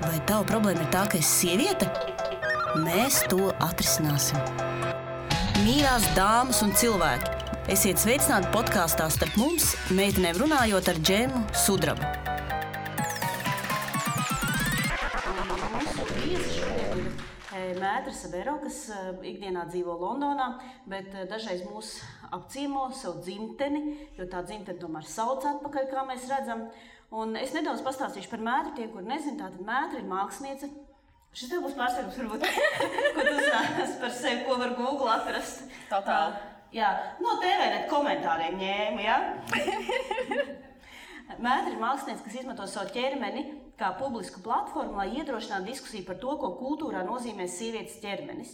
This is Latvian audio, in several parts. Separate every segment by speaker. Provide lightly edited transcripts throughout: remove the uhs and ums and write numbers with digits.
Speaker 1: Vai tava problēma ir tā, ka esi sieviete? Mēs to atrisināsim. Mīļās dāmas un cilvēki, esiet sveicināti podkāstā Starp mums, meitenēm runājot ar Džemu Sudrabu. Mētra Sabero, kas ikdienā dzīvo Londonā, bet dažreiz mūs apciemo savu dzimteni, jo tā dzimteni tomēr sauc atpakaļ, kā mēs redzam. Un es nedaudz pastāstīšu par Mētru, tie, kur nezin, tātad Mētra ir māksliniece. Šis tev būs pārsteigums, varbūt, ko tu uzzināsi par sevi, ko var Google atrast.
Speaker 2: Totāli.
Speaker 1: Jā, no TVNet komentāriem ņēmu, jā? Mētra ir māksliniece, kas izmanto savu ķermeni kā publisku platformu, lai iedrošinātu diskusiju par to, ko kultūrā nozīmē sievietes ķermenis.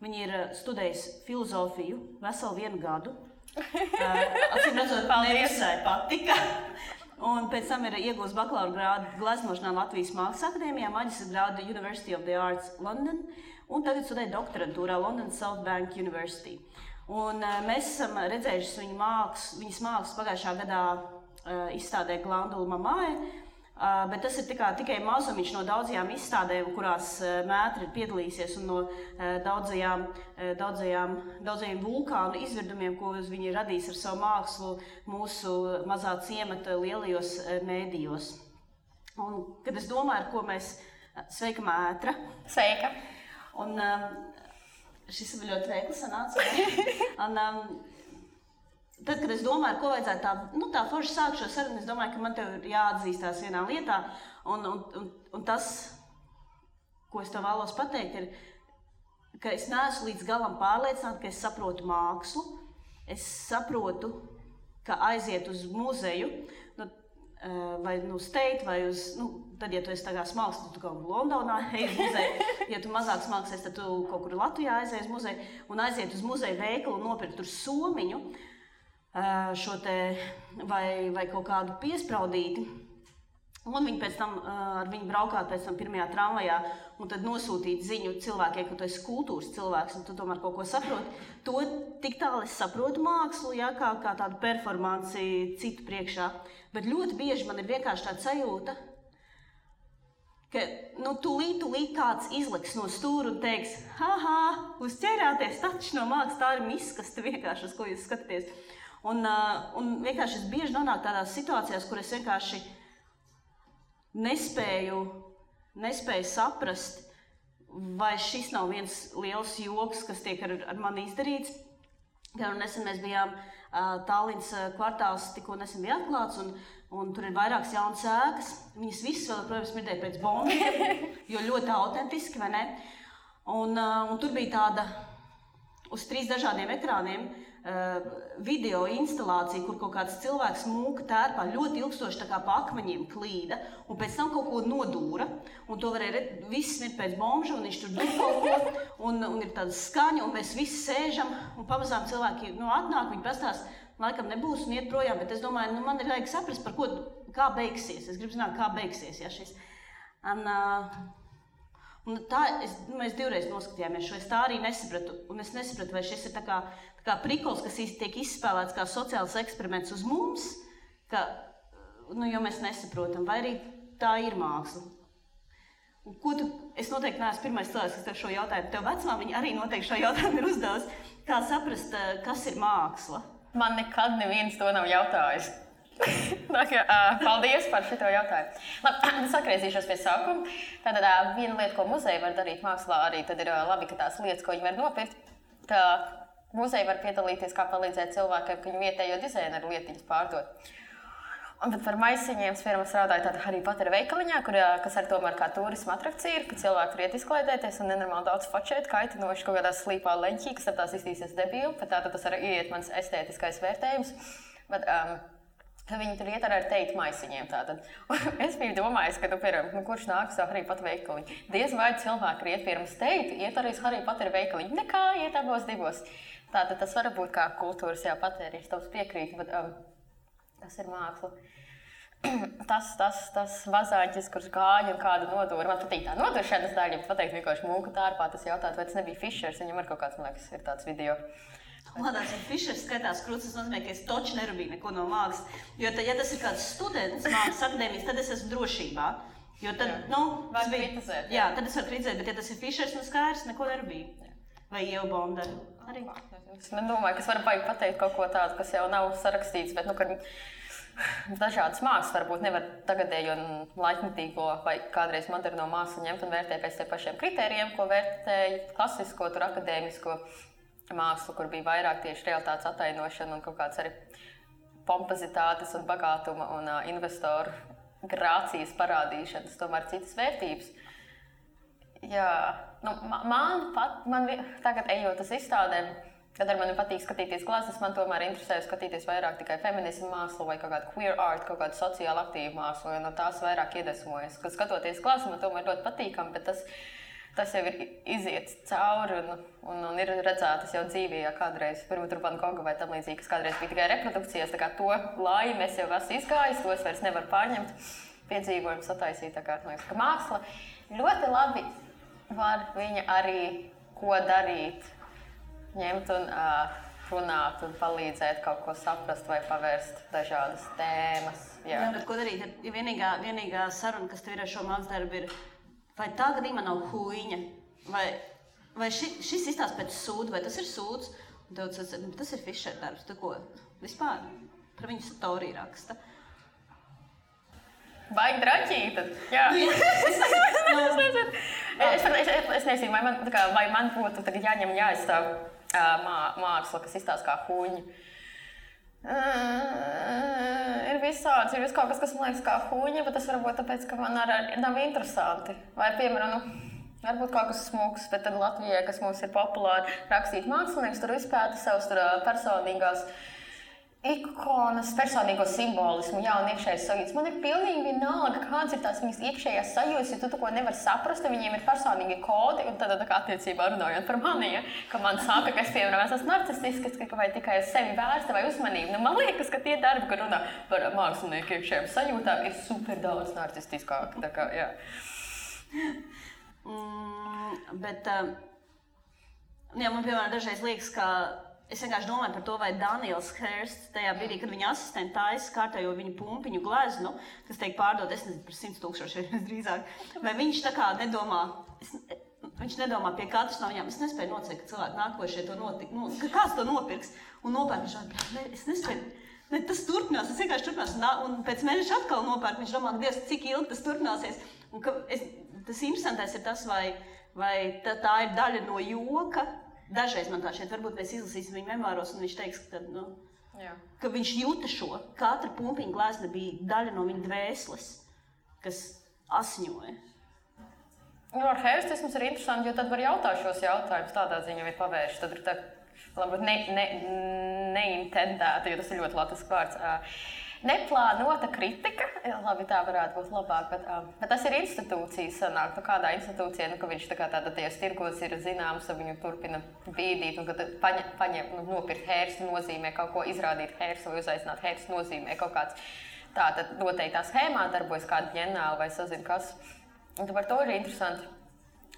Speaker 1: Viņa ir studējusi filozofiju veselu 1 gadu. Acīm redzot, nevisai patika. Un pēc tam ir iegūst bakalaura grādu gleznošanā Latvijas Mākslas akadēmijā, maģistra grādu University of the Arts London, un tagad studē doktorantūrā London South Bank University. Un mēs esam redzējuši viņas mākslas pagājušā gadā izstādē Glandula Mamai, bet tas ir tikai mazumiņš no daudzajām izstādēm, kurās Mētra ir piedalījusies, un no daudzajiem vulkānu izvirdumiem, ko viņa ir radījis ar savu mākslu mūsu mazā ciemata lielajos mēdījos. Un, kad es domāju, ar ko mēs... Sveika, Mētra!
Speaker 2: Sveika!
Speaker 1: Un šis ir ļoti veikli sanāca. Un, tad, kad es domāju, ko vajadzētu tā forši sākt šo sarunu, es domāju, ka man tev ir jāatzīstās vienā lietā, un tas, ko es tev vēlos pateikt, ir, ka es neesmu līdz galam pārliecināta, ka es saprotu mākslu. Es saprotu, ka aiziet uz muzeju, vai uz Tate, vai uz, tad, ja tu esi tagad smalks, tad tu kaut kur Londonā ej uz muzeju. Ja tu mazāk smalksies, tad tu kaut kur Latvijā aizies uz muzeju, un aiziet uz muzeju veikalu un nopirkt tur somiņu, šo te, vai kaut kādu piespraudīti, un viņi pēc tam ar viņu braukāt pēc tam pirmajā tramvajā, un tad nosūtīt ziņu cilvēkiem, ka tu esi kultūras cilvēks, un tu tomēr kaut ko saproti. To tik tālu es saprotu mākslu, ja, kā tādu performanci citu priekšā, bet ļoti bieži man ir vienkārši tāda sajūta, ka tūlīt kāds izliks no stūra un teiks, uzķērāties, taču no mākslas tā ir miskaste vienkārši, uz ko jūs skatāties. Un vienkārši es bieži nonāku tādās situācijās, kur es vienkārši nespēju saprast, vai šis nav viens liels joks, kas tiek ar mani izdarīts. Nesen mēs bijām Tallinas kvartāls, tikko nesen bija atklāts, un tur ir vairākas jaunas ēkas. Viņas visas vēl, protams, smirdēja pēc bombiem, jo ļoti autentiski, vai ne? Un tur bija tāda uz 3 dažādiem ekrāniem video instalācija, kur kaut kāds cilvēks mūka tērpā ļoti ilgstoši tā kā pa akmeņiem klīda, un pēc tam kaut ko nodūra, un to varēja viss smirt pēc bombža, un viņš tur dūr kaut ko, un ir tāda skaņa, un mēs visi sēžam, un pamazām cilvēki atnāk, viņi pastāst, laikam nebūs un iet projām, bet es domāju, man ir vajag saprast, par ko, kā beigsies. Es gribu zināt, kā beigsies, ja šis. Un tā, mēs 2 reizes noskatījāmies šo, es tā arī nesapratu, un es nesapratu, vai šis ir tā kā prikols, kas tiek izspēlēts kā sociāls eksperiments uz mums, jo mēs nesaprotam, vai arī tā ir māksla. Un es noteikti neesmu pirmais cilvēks, kas tev šo jautājumu, tev vecumā viņa arī noteikti šo jautājumu ir uzdevusi, kā saprast, kas ir māksla.
Speaker 2: Man nekad neviens to nav jautājis. Paldies par šito jautājumu. Labi, sakriezīšos pie sākuma. Tātad viena lieta, ko muzeja var darīt mākslā, arī tad ir labi, ka tās lietas, ko viņi var nopirkt, ka muzeja var piedalīties, kā palīdzēt cilvēkiem, ka viņu vietējo dizaineru lietiņas pārdot. Bet par maisiņiem es strādāju tādā Harry Potter veikaliņā, kas ar tomēr kā turisma atrakcija ir, ka cilvēki tur iet izklaidēties un nenormāli daudz fočēt, kaitinoši kaut kādā slīpā leņķī, kas ar tās iztīsies debīli, bet tātad tas arī iet mans estētiskais vērtējums. Bet, viņi tur iet ar Tate maisiņiem tātad. Es biju domājis, ka kurš nāk uz Harry Potter veikaliņu. Diez vai cilvēki iet pirms Tate, iet arī uz Harry Potter veikaliņu. Nekā, iet abos divos. Tātad tas var būt kā kultūras patēriņš, tavs piekrīt, bet tas ir māksla. Tas vazāņķis, kurš gāja un kādu nodūra. Man patīk tā noduršanas daļa, bet pateikt vienkārši mūka tārpā, tas jautāt, vai tas nebija Fišers, viņam ar kaut kāds, man liekas, ir tāds video.
Speaker 1: Lādās, ja Fišers skatās krūts, tas nozīmē, ka es toči nerubīju neko no mākslas. Jo, ja tas ir kāds students mākslas akadēmijas, tad es esmu drošībā. Jo tad,
Speaker 2: Var kritizēt.
Speaker 1: Jā, tad es varu kritizēt, bet ja tas ir Fišers, skaidrs, neko nebija. Vai Ieva Bondara arī.
Speaker 2: Es nedomāju, ka es varu pateikt kaut ko tādu, kas jau nav sarakstīts, bet, ka dažādas mākslas varbūt nevar tagadējo un laikmetīgo vai kādreiz moderno mākslu ņemt un vērtēt pēc tiem pašiem kritērijiem, ko vērtēja klasisko, tur akadēmisko mākslu, kur bija vairāk tieši realitātes attainošana un kaut kāds arī pompozitātes un bagātuma un investoru grācijas parādīšanas, tomēr citas vērtības. Jā, man tagad ejot uz izstādēm, kad ar mani patīk skatīties gleznas, man tomēr interesē skatīties vairāk tikai feminismu mākslu vai kaut kādu queer art, kaut kādu sociāli aktīvu mākslu, jo no tās vairāk iedvesmojas. Kad skatoties gleznas, man tomēr ļoti patīkami, bet tas jau ir iziets cauri un ir redzētas jau dzīvē, ja kādreiz pirmā Van Gogha vai tam līdzīgi, kas kādreiz bija tikai reprodukcijas, tā kā to laimi es jau esmu izgājis, to es vairs nevaru pārņemt, piedzīvojumu sataisīt, tā kā, man liekas, ka māksla ļoti labi var viņa arī ko darīt, ņemt un runāt un palīdzēt kaut ko saprast vai pavērst dažādas tēmas.
Speaker 1: Jā, bet ko darīt? Ja vienīgā saruna, kas tev ir ar šo mākslas darbu, ir vai tā gadījumā nav huīņa, vai šis izstāsta pēc sūda, vai tas ir sūds, un tev tas ir Fišer darbs, tu ko vispār par viņu storiju raksta.
Speaker 2: Baigi draķīta, jā. Es nezinu, vai man būtu tagad jāņem jāizstāv māksla, kas izstāsta kā huīņa. Ir visāds, ir kaut kas man liekas kā huīņa, bet tas varbūt tāpēc, ka man arī nav interesanti. Vai, piemēram, varbūt kaut kas smūgs, bet tad Latvijai, kas mums ir populāri rakstīt mākslinieks, tur izpēta savus personīgās ikonas, personīgo simbolismu, jā, un iekšējais sajūtas. Man ir pilnīgi vienalga, kāds ir tās viņas iekšējās sajūtas, jo tu to nevari saprast, viņiem ir personīgi kodi, un tad kā attiecībā runājot par mani, ja, ka man saka, ka es, piemēram, esmu narcistisks, vai tikai uz sevi vērsta vai uzmanību. Man liekas, ka tie darbi, kad runā par mākslinieku iekšējām sajūtām, ir super daudz narcistiskāki, tā kā, jā.
Speaker 1: Bet, man, piemēram, dažreiz liekas, ka es vienkārši domāju par to, vai Daniels Hirsts tajā brīdī, kad viņa asistenti taisa kārtējo viņa pumpiņu gleznu, kas tiek pārdot, es nezinu, par 100,000 drīzāk, vai viņš tā kā nedomā, viņš nedomā pie katras no viņām, es nespēju nocēt, ka cilvēki nākošie to ka kāds to nopirks un nopērk, viņš es nespēju, tas turpinās, tas vienkārši turpinās, un pēc mēneša atkal nopērk, viņš domā, Dievs, cik ilgi tas turpināsies, un tas interesantais ir tas, vai tā ir daļa no joka. Dažreiz man tā šeit, varbūt mēs izlasīsim viņu memāros, un viņš teiks, ka viņš jūta šo. Katra pumpiņa glezna bija daļa no viņa dvēseles, kas asiņoja.
Speaker 2: Ar herstisms ir interesanti, jo tad var jautāt šos jautājumus, tādā ziņā ir pavērši. Tad ir tā, varbūt neintendēta, jo tas ir ļoti latviešu vārds. Neplānota kritika, labi, tā varētu būt labāk, bet tas ir institūcijas sanāk, kādā institūcijā, ka viņš tajos tirgos ir zināms, un viņu turpina bīdīt, un kad paņem, nopirkt hērstu nozīmē kaut ko, izrādīt hērstu vai uzaicināt hērstu nozīmē kaut kāds tātad noteiktā schēmā darbojas kāda ģenāla vai sazina kas. Un par to ir interesanti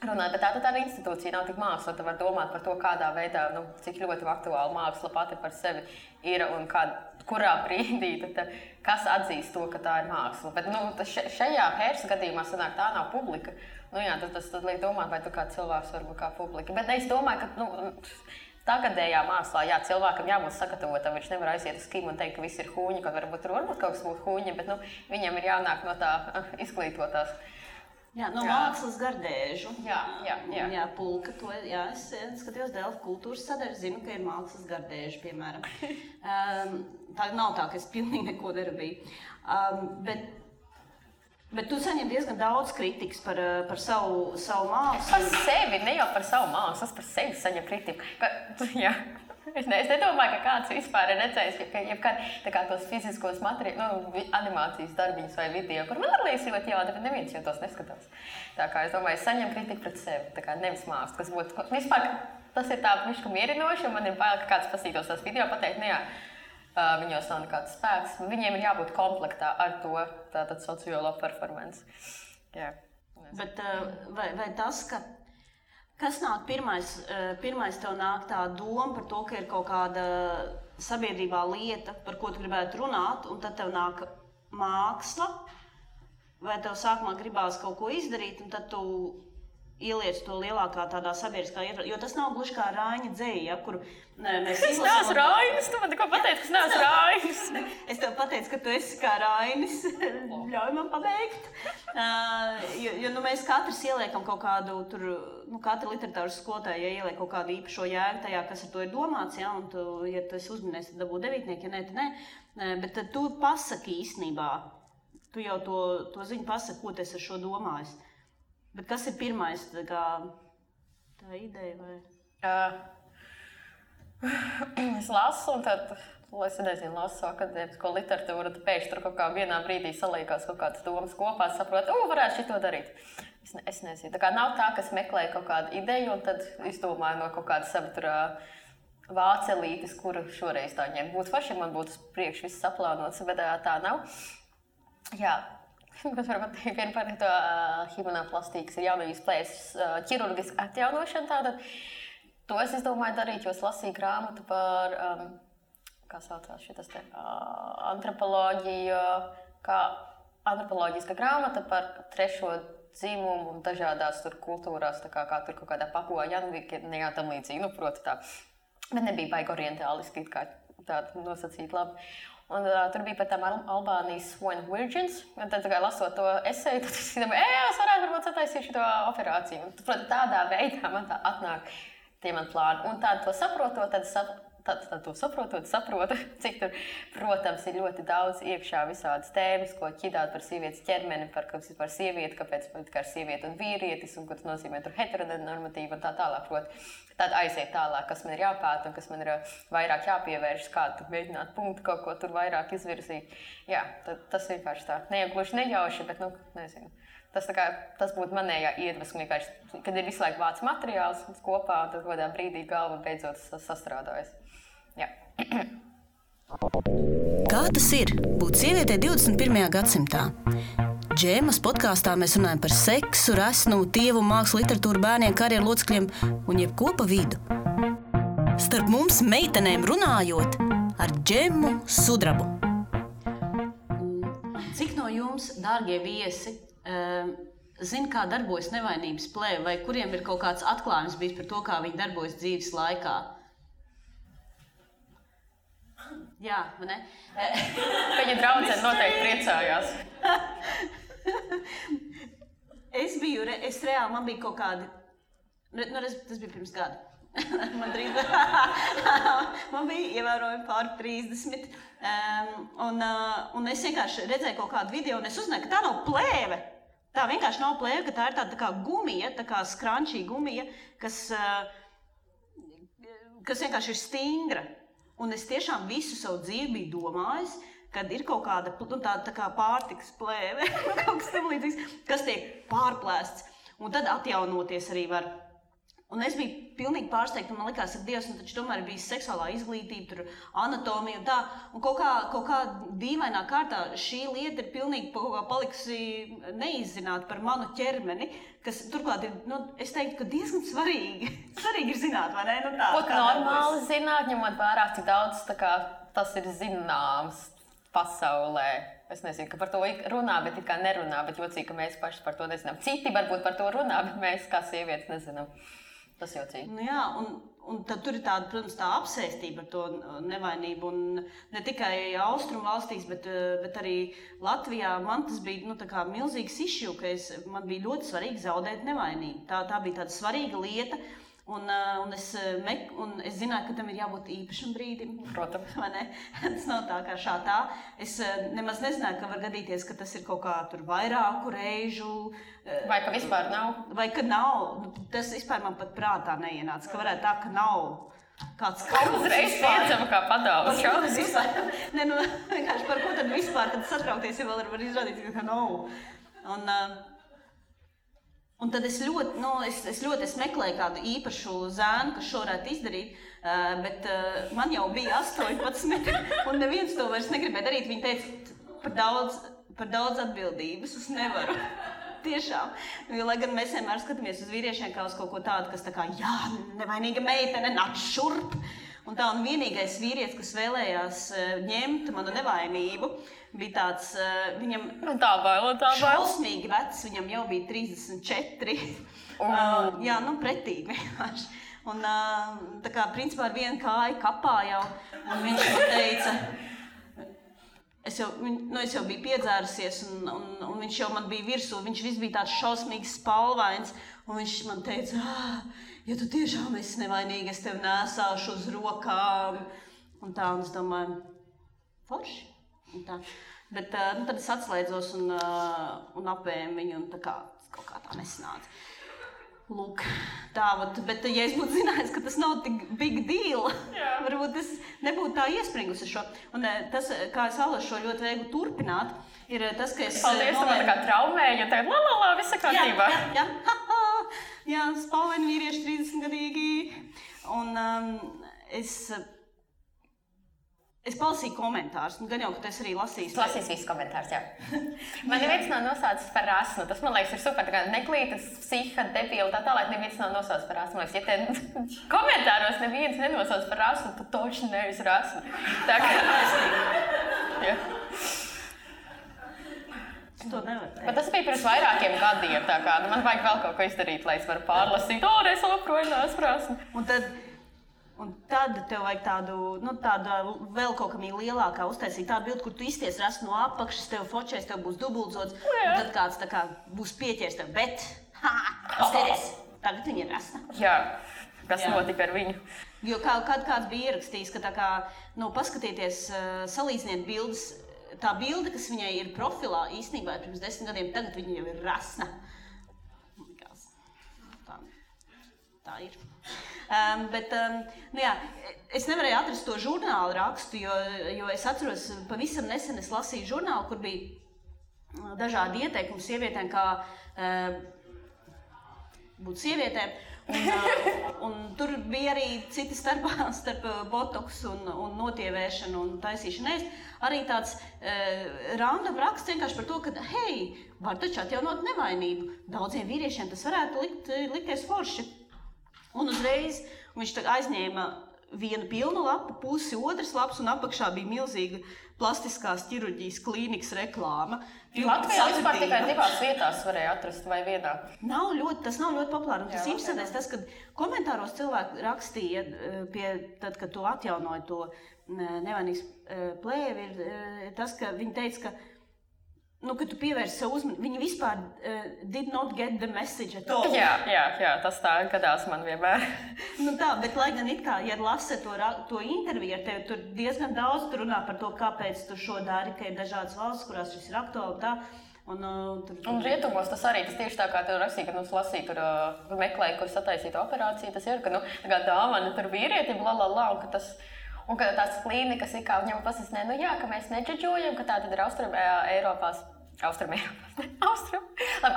Speaker 2: runāt, bet tā ir institūcija, nav tik māksla, tu var domāt par to, kādā veidā, cik ļoti aktuāla māksla pati par sevi ir un kurā brīdī, kas atzīst to, ka tā ir māksla. Bet šajā Hērsta gadījumā sanāk, tā nav publika. Tas liek domāt, vai tu kā cilvēks var būt kā publika. Bet es domāju, ka tagadējā mākslā, jā, cilvēkam jābūt sagatavotam, viņš nevar aiziet uz kimu un teikt, ka viss ir huņi, ka varbūt kaut kas būtu huņi, bet viņam ir jānāk no tā izglītotās.
Speaker 1: Jā, no mākslas gardēžu.
Speaker 2: Jā,
Speaker 1: pulka to, es skatījos Delfu kultūras sadaļu, zinu, ka ir mākslas gardēžu, piemēram. Tā nav tā, ka es pilnīgi neko darīju. Bet tu saņem diezgan daudz kritikas par savu mākslu.
Speaker 2: Par sevi, ne jau par savu mākslu, es par sevi saņem kritiku. Jā. Es nedomāju, ka kāds vispār ir redzējis, ka tos fiziskos animācijas darbiņus vai video, kur man liekas ļoti jāda, bet neviens jau tos neskatās. Tā kā es domāju, es saņemu kritiku pret sevi, tā kā nevis mākslu, kas būtu, vispār tas ir tā miška mierinoši, un man ir bail, ka kāds pasītos tās video, pateikt, viņos nav nekāds spēks, viņiem ir jābūt komplektā ar to tātad sociālo performance. Jā.
Speaker 1: Bet vai tas, kas nāk pirmais tev nāk tā doma par to, ka ir kaut kāda sabiedrībā lieta, par ko tu gribētu runāt, un tad tev nāk māksla, vai tev sākumā gribās kaut ko izdarīt, un tad tu ieliec to lielākā tādā sabiedriskā ietvarā, jo tas nav gluži kā Raiņa dzeja, ja, kur mēs
Speaker 2: Es neesmu Rainis, tu man tikko pateici, ka es neesmu Rainis.
Speaker 1: Es tev pateicu, ka tu esi kā Rainis, ļauj man pabeigt. Jo mēs katrs ieliekam kaut kādu, tur, katra literatūras skolotāja, ja ieliek kaut kādu īpašo jēgu tajā, kas ar to ir domāts, ja, un tu, ja tu esi uzminējis, tad dabū 9, ja nē, tad nē. Bet tad tu pasaki īstenībā, tu jau to ziņu pasaki, ko tu esi ar šo domājis. Bet kas ir pirmais, tā ideja? Vai?
Speaker 2: Es lasu, un tad, es nezinu, lasu akadēmisko literatūru, tad pēkšņi tur kaut kā vienā brīdī salīkās kaut kādas domas kopā, saprotu, varētu šito darīt. Es nezinu, tā kā nav tā, ka es meklēju kaut kādu ideju, un tad izdomāju no kaut kāda sava tur vācelītes, kuru šoreiz tā ņem. Būtu faši, ja man būtu priekš viss saplānots, bet tā nav. Jā. Kas varbūt vien par to himenoplastīkas ir jaunajās plēses ķirurgiska atjaunošana tātad. To es izdomāju darīt, jo es lasīju grāmatu par, kā saucās šitas te, antropoloģiju, kā antropoloģiska grāmata par trešo dzimumu un dažādās tur kultūrās, tā kā tur kaut kādā Papua Januvīnijā tam līdzīgi, proti tā. Bet nebija baigi orientāliski, kā tāda nosacīt labi. Un tur bija par tām Albānijas swan virgins, un tad lasot to eseju, tad es domāju, es varētu varbūt sataisīt šo operāciju. Un tādā veidā man tā atnāk tie man plāni. Un tādu to saprotot, tad saprotu, cik tur, protams, ir ļoti daudz iekšā visādas tēmas, ko ķidāt par sievietes ķermeni, par sievieti, kāpēc kā ir sieviete un vīrietis, un ko tas nozīmē tur heteronormatīva un tā tālāk. Tad aiziet tālāk, kas man ir jāpēta un kas man ir vairāk jāpievēršas, kā tu mēģināt punktu kaut ko tur vairāk izvirzīt. Jā, tas vienkārši tā. Ne jau gluži nejauši, bet, nezinu. Tas būtu manējā iedvesma vienkārši, kad ir visu laiku vāc materiāls kopā, un tad kādā brīdī galva beidzot sastrādājas. Jā.
Speaker 3: Kā tas ir būt sievietei 21. gadsimtā? Džēmas podkāstā mēs runājam par seksu, resnumu, tievu, mākslu, literatūru, bērniem, karjeru locekļiem un jebko pa vidu. Starp mums meitenēm runājot ar Džemu Sudrabu.
Speaker 1: Cik no jums, dārgie viesi, zina, kā darbojas nevainības plēve, vai kuriem ir kaut kāds atklājums bijis par to, kā viņi darbojas dzīves laikā? Jā, vai ne?
Speaker 2: Viņa draudzene noteikti priecājās.
Speaker 1: Es reāli, man bija kaut kādi, tas bija pirms gada. Man bija ievērojami pār 30. Un es vienkārši redzēju kaut kādu video, un es uzzināju, ka tā nav plēve. Tā vienkārši nav plēve, ka tā ir tāda tā kā gumija, tā kā skrančī gumija, kas vienkārši ir stingra. Un es tiešām visu savu dzīvi biju domājis, kad ir kaut kāda tā kā pārtikas plēve, kaut kas tam līdzīgs, kas tiek pārplēsts, un tad atjaunoties arī var. Un es biju pilnīgi pārsteigta, un man likās, ka Dievs, taču tomēr bija seksuālā izglītība, tur anatomija un tā, un kaut kā dīvainā kārtā šī lieta ir pilnīgi kaut kā palikusi neizzināta par manu ķermeni, kas turklāt ir, es teiktu, ka diezgan svarīgi ir zināt, vai ne?
Speaker 2: Būtu normāli zināt, ņemot vērā, cik daudz tas ir zināms pasaulē. Es nezinu, ka par to runā, bet it kā nerunā, bet jocīgi, ka mēs paši par to nezinām. Citi varbūt par to runā, bet mēs kā sievietes nezinām. Tas jocīgi.
Speaker 1: Jā, un tad tur ir tāda, protams, tā apsēstība ar to nevainību. Un ne tikai austrumu valstīs, bet arī Latvijā man tas bija tā kā milzīgs issue, ka man bija ļoti svarīgi zaudēt nevainību. Tā bija tāda svarīga lieta. Un es zināju, ka tam ir jābūt īpašam brīdim.
Speaker 2: Protams.
Speaker 1: Vai ne? Tas nav tā kā šādā. Es nemaz nezināju, ka var gadīties, ka tas ir kaut kā tur vairāku reižu.
Speaker 2: Vai ka vispār nav?
Speaker 1: Vai ka nav. Tas vispār man pat prātā neienāca, ka varētu tā, ka nav kāds kauns.
Speaker 2: Uzreiz piedzama kā padaules šausmas.
Speaker 1: Vienkārši par ko tad vispār, kad satraukties, ja vēl var izrādīt, ka nav. Un tad es meklēju kādu īpašu zēnu, kas šo varētu izdarīt, bet man jau bija 18, un neviens to vairs negribēja darīt. Viņi teica, par daudz atbildības es nevaru. Tiešām. Jo, lai gan mēs vienmēr skatāmies uz vīriešiem kā uz kaut ko tādu, kas tā kā, jā, nevainīga meitene, nāc šurp. Un vienīgais vīrietis, kas vēlējās ņemt manu nevainību, bija tāds, viņam šausmīgi vecs, viņam jau bija 34. Jā, pretīgi vienkārši. Un tā kā principā ar vienu kāju kapā jau, un viņš man teica, es jau biju piedzērusies, un viņš jau man bija virsū, viņš viss bija tāds šausmīgs spalvains, un viņš man teica, ja tu tiešām esi nevainīgi, es tevi nesāšu uz rokām. Un es domāju, forši. Bet tad es atslēdzos un apēmu viņu, un kaut kā tā nesanāca. Lūk, bet ja es būtu zinājis, ka tas nav tik big deal, varbūt es nebūtu tā iespringusi šo. Un tas, kā es vēlos šo ļoti viegli turpināt, ir tas, ka es...
Speaker 2: Paldies, tu man tā kā traumēji, un tagad la, viss ir kārtībā.
Speaker 1: Jā, spalvaini vīrieši 30-gadīgi. Un es palasīju komentārus, gan jau, ka tu esi arī lasījis.
Speaker 2: Lasīs visus komentārus, jā. Man neviens nav nosaucis par rasnu. Tas, man liekas, ir super. Tā kā neklītas, psiha, debila, tā tālāk neviens nav nosaucis par rasnu. Man liekas, ja te komentāros neviens nenosauc par rasnu, tu toši nevis rasnu. Tā kā... Jā.
Speaker 1: To nevar teikt.
Speaker 2: Bet tas bija pirms vairākiem gadiem. Tā kā man vajag vēl kaut ko izdarīt, lai es varu pārlasīt. Es aproju rasnu.
Speaker 1: Un tad tev vajag tādu vēl kaut kam lielākā uztaisīt tādu bildi, kur tu izties rasnu no apakšas, tev fočēs, tev būs dubultzots, un tad kāds tā kā būs pieķers tev, bet, skaties, tagad viņa ir rasna.
Speaker 2: Jā, kas notika ar viņu?
Speaker 1: Jo kāds bija ierakstījis, ka tā kā, paskatieties, salīdziniet bildes, tā bilde, kas viņai ir profilā, īstenībā pirms 10 gadiem, tagad viņa jau ir rasna. Tā ir. Es nevarēju atrast to žurnālu rakstu, jo es atceros, pavisam nesen es lasīju žurnālu, kur bija dažādi ieteikumi sievietēm, kā būt sievietēm. Un tur bija arī citi starp botoks un notievēšanu un taisīšanu ēst. Arī tāds random raksts vienkārši par to, ka, hei, var taču atjaunot nevainību. Daudziem vīriešiem tas varētu likties forši. Un uzreiz viņš aizņēma vienu pilnu lapu, pusi otras lapas, un apakšā bija milzīga plastiskās ķirurģijas klīnikas reklāma.
Speaker 2: Latvijā vispār tikai 2 vietās varēja atrast vai vienā.
Speaker 1: Tas nav ļoti populāri. Un tas interesantais tas, kad komentāros cilvēki rakstīja, tad, kad tu atjaunoji to nevainīgas plēvi, ir tas, ka viņi teica, ka ka tu pievērsi sev uzmanību, viņi vispār did not get the message at all.
Speaker 2: Jā, tas tā gadās man vienmēr.
Speaker 1: Bet lai gan it kā, ja lasa to interviju ar tevi, tur diezgan daudz tur runā par to, kāpēc tu šo dari, ka ir dažādas valsts, kurās šis ir aktuāli tā. Un
Speaker 2: rietumos tas arī, tas tieši tā kā tu rakstīji, kad lasīji, tur meklēji, kur sataisīta operācija, tas ir, ka tā kā dāvana tur vīrietim, un ka tas... Un ka tās klīnikas ir kā viņam pasasnē, ka mēs nedžadžojam, ka tā tad ir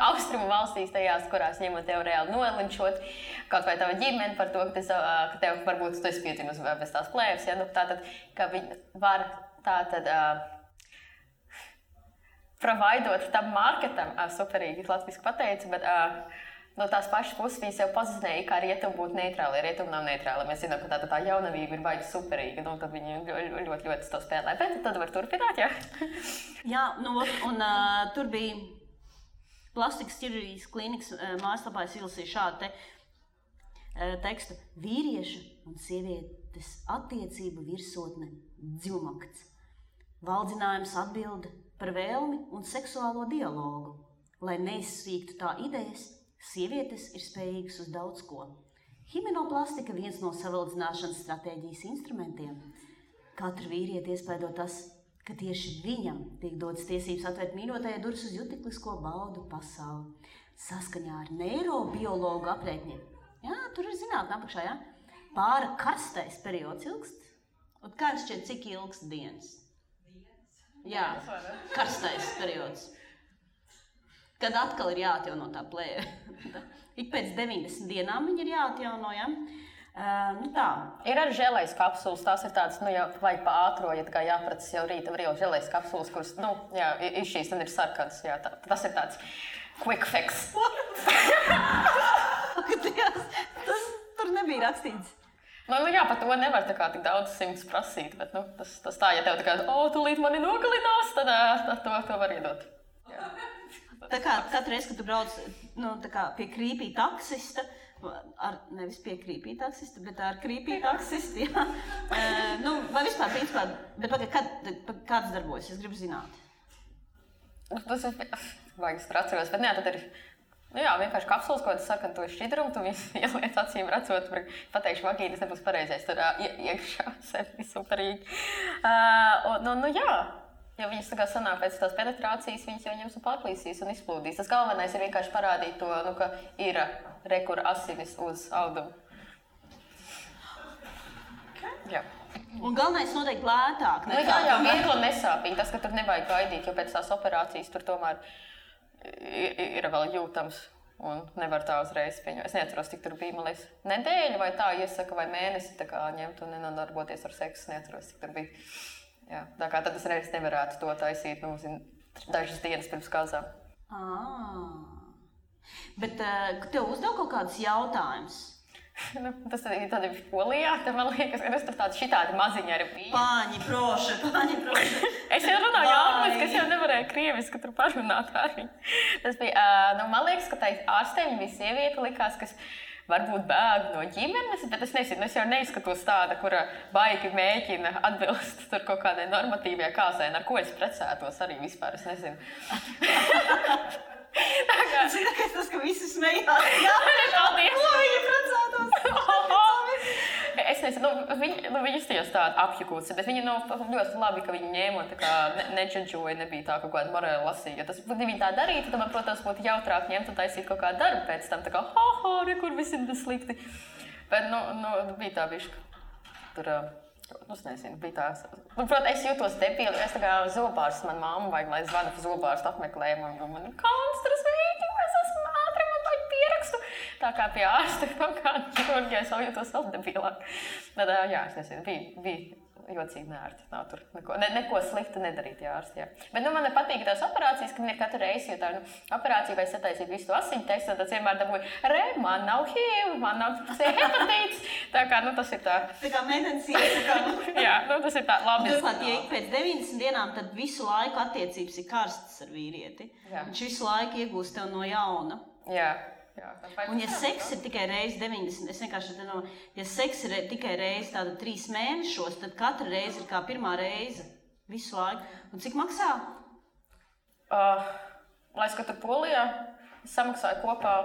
Speaker 2: Austrumu valstīs tajās, kurās ņemot tev reāli nolinčot, kaut vai tava ģimene par to, ka tev varbūt tu esi piedzimis bez tās plēves, tātad, ka viņi var tātad provaidot tam marketam, superīgi latviski pateicu, bet no tās pašas puses viņi sev pozicionēja, kā rietumi būtu neitrāli. Rietumi nav neitrāli. Mēs zinām, ka tā jaunavība ir baigi superīga, un tad viņi ļoti to spēlē. Bet tad var turpināt, jā?
Speaker 1: Jā, un tur bija plastikas ķirurģijas klīnikas mājaslapā, es izlasīju šādu tekstu. Vīrieša un sievietes attiecību virsotne dziļumakts. Valdzinājums atbilde par vēlmi un seksuālo dialogu, lai neizsīktu tā idejas. Sievietes ir spējīgas uz daudz ko. Himenoplastika viens no savaldzināšanas stratēģijas instrumentiem. Katru vīrieti iespaido tas, ka tieši viņam tiek dotas tiesības atvērt mīļotajai durvis uz jutiklisko baudu pasauli. Saskaņā ar neirobiologu aprēķiniem. Jā, tur ir zinātne apakšā, jā. Pāra karstais periods ilgst. Un kā šķiet, cik ilgst dienas? Jā, karstais periods. Kad atkal ir jāatjauno tā plēve. Ik pēc 90 dienām viņi ir jāatjauno, ja? Tā.
Speaker 2: Ir arī želejas kapsulas, tās ir tādas, jau vajag pa ātro, ja tā kā jāpracas jau rīta, var jau želejas kapsulas, kuras, ir šīs, un ir sarkanas, jā, tas ir tāds quick fix.
Speaker 1: Tas tur nebija rakstīts.
Speaker 2: Jā, par to nevar tā kā tik daudz simts prasīt, bet tas tā, ja tev tā kā, tūlīt mani nogalinās, tad to var iedot. Jā.
Speaker 1: Tā kā katru reizi, kad tu brauc tā kā pie krīpī taksista, nevis pie krīpī taksista, bet ar krīpī taksistu, jā. Vai vispār, principā, bet kāds darbojas, es gribu zināt?
Speaker 2: Tas ir, vajag es atceros, bet tad ir, vienkārši kapsulas, ko tu saka, tu ir šķidrumu, tu visi ieliec acīm redzot, pateikšu vagīnas nebūs pareizais, tur iekšā sevi superīgi. Ja viņas tā kā sanāk pēc tās penetrācijas, viņas jau ņems un pārplīsīs un izplūdīs. Tas galvenais ir vienkārši parādīt to, ka ir rekura asinis uz audumu. Jā.
Speaker 1: Un galvenais noteikti lētāk.
Speaker 2: Jā, viegli un nesāpīgi. Tas, ka tur nevajag gaidīt, jo pēc tās operācijas tur tomēr ir vēl jūtams un nevar tā uzreiz pieņemt. Es neatceros, tik tur bija, man liekas, nedēļa vai tā iesaka vai mēnesi tā kā ņemt un nenodarboties ar seksu. Neatceros, tik tur bija. Jā, tā kā tad es reiz nevarētu to taisīt, dažas dienas pirms kāzām.
Speaker 1: Bet tev uzdev kaut kādus jautājumus?
Speaker 2: Tas tad ir Polijā, tad man liekas, ka es tur šitādi maziņi arī bija.
Speaker 1: Paņi proši.
Speaker 2: Es jau runāju angliski, es jau nevarēju krieviski tur parunāt arī. Tas bija, man liekas, ka tā ārstē viņa bija sieviete, likās, kas varbūt bēg no ģimenes, bet es nezinu, es jau neizskatos tāda, kura baigi mēģina atbilst tur kaut kādai normatīvajai kāzai, ar ko es precētos arī vispār, es nezinu.
Speaker 1: Zinu, ka tas, ka visi smējās. Jā,
Speaker 2: paldies.
Speaker 1: Ko viņi precētos?
Speaker 2: Es nezinu, viņi iztījās tādi apjukūci, bet viņi ļoti labi, ka viņi ņēma un tā kā neģedžoja, nebija tā kaut kāda morāla lasīja. Tas, ja viņi tā darītu, tad man, protams, būtu jautrāk ņemt un taisīt kaut kādu darbu pēc tam, tā kā, kur visi ir slikti. Bet, bija tā bišķi. Tur, es nezinu, bija tā. Protams, es jūtos debili, es tā kā zobārsts, man mamma vajag, lai zvanu par zobārstu apmeklējumu, un man konstras veidi, es esmu ātri, man vajag pierakstu. Tā kā pie ārsta kaut kāda ķirurģija, es vēl jūtos vēl debilāk. Tad, es nezinu, bija jocīgi nērti. Nav tur neko sliktu nedarīt, ārsti, jā. Bet, man patīk tās operācijas, ka man ir katru reizi, jo tā, operācija vai sataisīt visu to asiņu testu, tad vienmēr dabūju, man nav HIV, man nav hepatīts. Tā kā, tas ir tā. Tā
Speaker 1: kā meitenes iesaka.
Speaker 2: Jā, tas ir tā labi.
Speaker 1: Turklāt, ja ik pēc 90 dienām, tad visu laiku attiecības ir karstas ar vīrieti. Jā. Viņš visu laiku iegūst tev no jauna.
Speaker 2: Jā.
Speaker 1: Un ja seks ir tikai reizi 90, es vienkārši ja seks ir tikai reizi tāda 3 mēnešos, tad katra reize ir kā pirmā reize visu laiku. Un cik maksā?
Speaker 2: Lai es, ka tur Polijā, es samaksāju kopā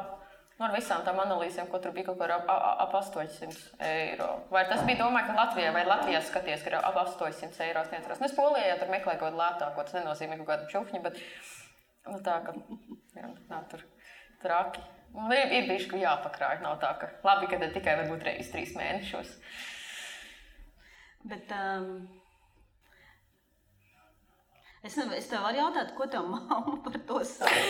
Speaker 2: ar visām tām analīzēm, ko tur bija kaut kā ap 800 eiro. Vai tas bija domāju, ka Latvijā vai Latvijā skaties, ka ir ap 800 eiro sniedzeros. Es Polijā jau tur meklēju kaut kādu lētāko, tas nenozīmē kaut kādu čufņu, bet tā, ka nav tur traki. Ir bišķi, ka jāpakrāj, nav tā, ka labi, ka tikai varbūt reiz 3 mēnešos.
Speaker 1: Bet es tev varu jautāt, ko tev mamma par to saka?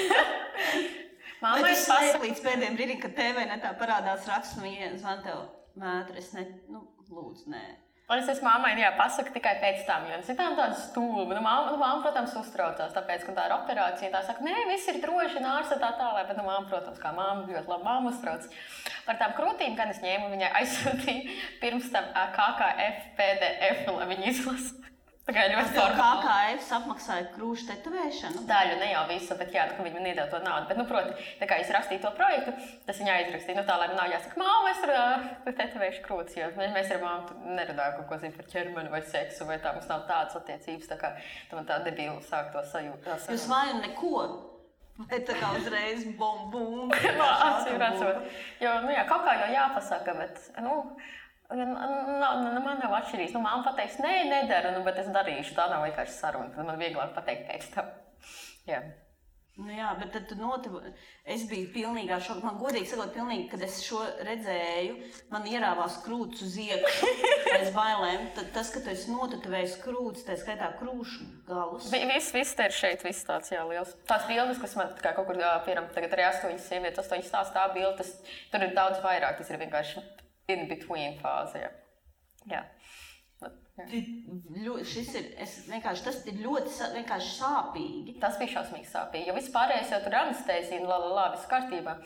Speaker 1: Vai tu slēp līdz pēdējiem brīdim, kad TV netā parādās raksts, viņa zvan tev mētri, es lūdzu, nē.
Speaker 2: Un es mammai, pasaku tikai pēc tam, jo citām tāda stulba. Mamma, protams, uztraucās, tāpēc, ka tā ir operācija. Tā saka, nē, viss ir droši, ārste tā tālāk. Bet, mamma, protams, kā mamma ļoti labi mamma uztrauc. Par tām krūtīm, kad es ņēmu, viņai aizsūtīju pirms tam KKF PDF, lai viņi izlasa. Tā kā ļoti formāli.
Speaker 1: KKF apmaksāja krūšu tetovēšanu?
Speaker 2: Daļu, ne jau visu, bet ka viņi man iedeva to naudu. Bet, proti, tā kā es rakstīju to projektu, tas viņai aizrakstīja. Tā, lai man nav jāsaka, māma, es tur tetovēšu krūtis, jo mēs ar māmu nerunājam kaut ko par ķermeni vai seksu, vai tā mums nav tādas attiecības, tā kā man tā debīla sāk to sajūta.
Speaker 1: Jūs vajag neko? Vai tā kā uzreiz bum?
Speaker 2: Acīm redzot. Jo, kaut kā jau jāpasaka, bet, man nav atšķirīgs. Māma pateiks, nē, nedaru, bet es darīšu. Tā nav vienkārši saruna. Tad man vieglāk pateikt pēc tam. Jā.
Speaker 1: Jā, bet tad es biju pilnīgā šokā. Man godīgi sakot, kad es šo redzēju, man ierāvās krūts uz iekšu pēc bailēm. Tad tas, ka tu esi notetavējis krūts, tā skaitā krūšu galus.
Speaker 2: Viss te ir šeit, viss tāds, liels. Tās bildes, kas man kā kaut kur, piemēram, tagad arī 8 sievietes, 8 stāsts tā bilde, tur ir daudz vairāk. Tas ir vienkārši in between fāze, jā.
Speaker 1: Tas ir ļoti vienkārši sāpīgi.
Speaker 2: Tas bija šausmīgi sāpīgi, jo viss pārējais jau tur anestēzija, viss kārtībā.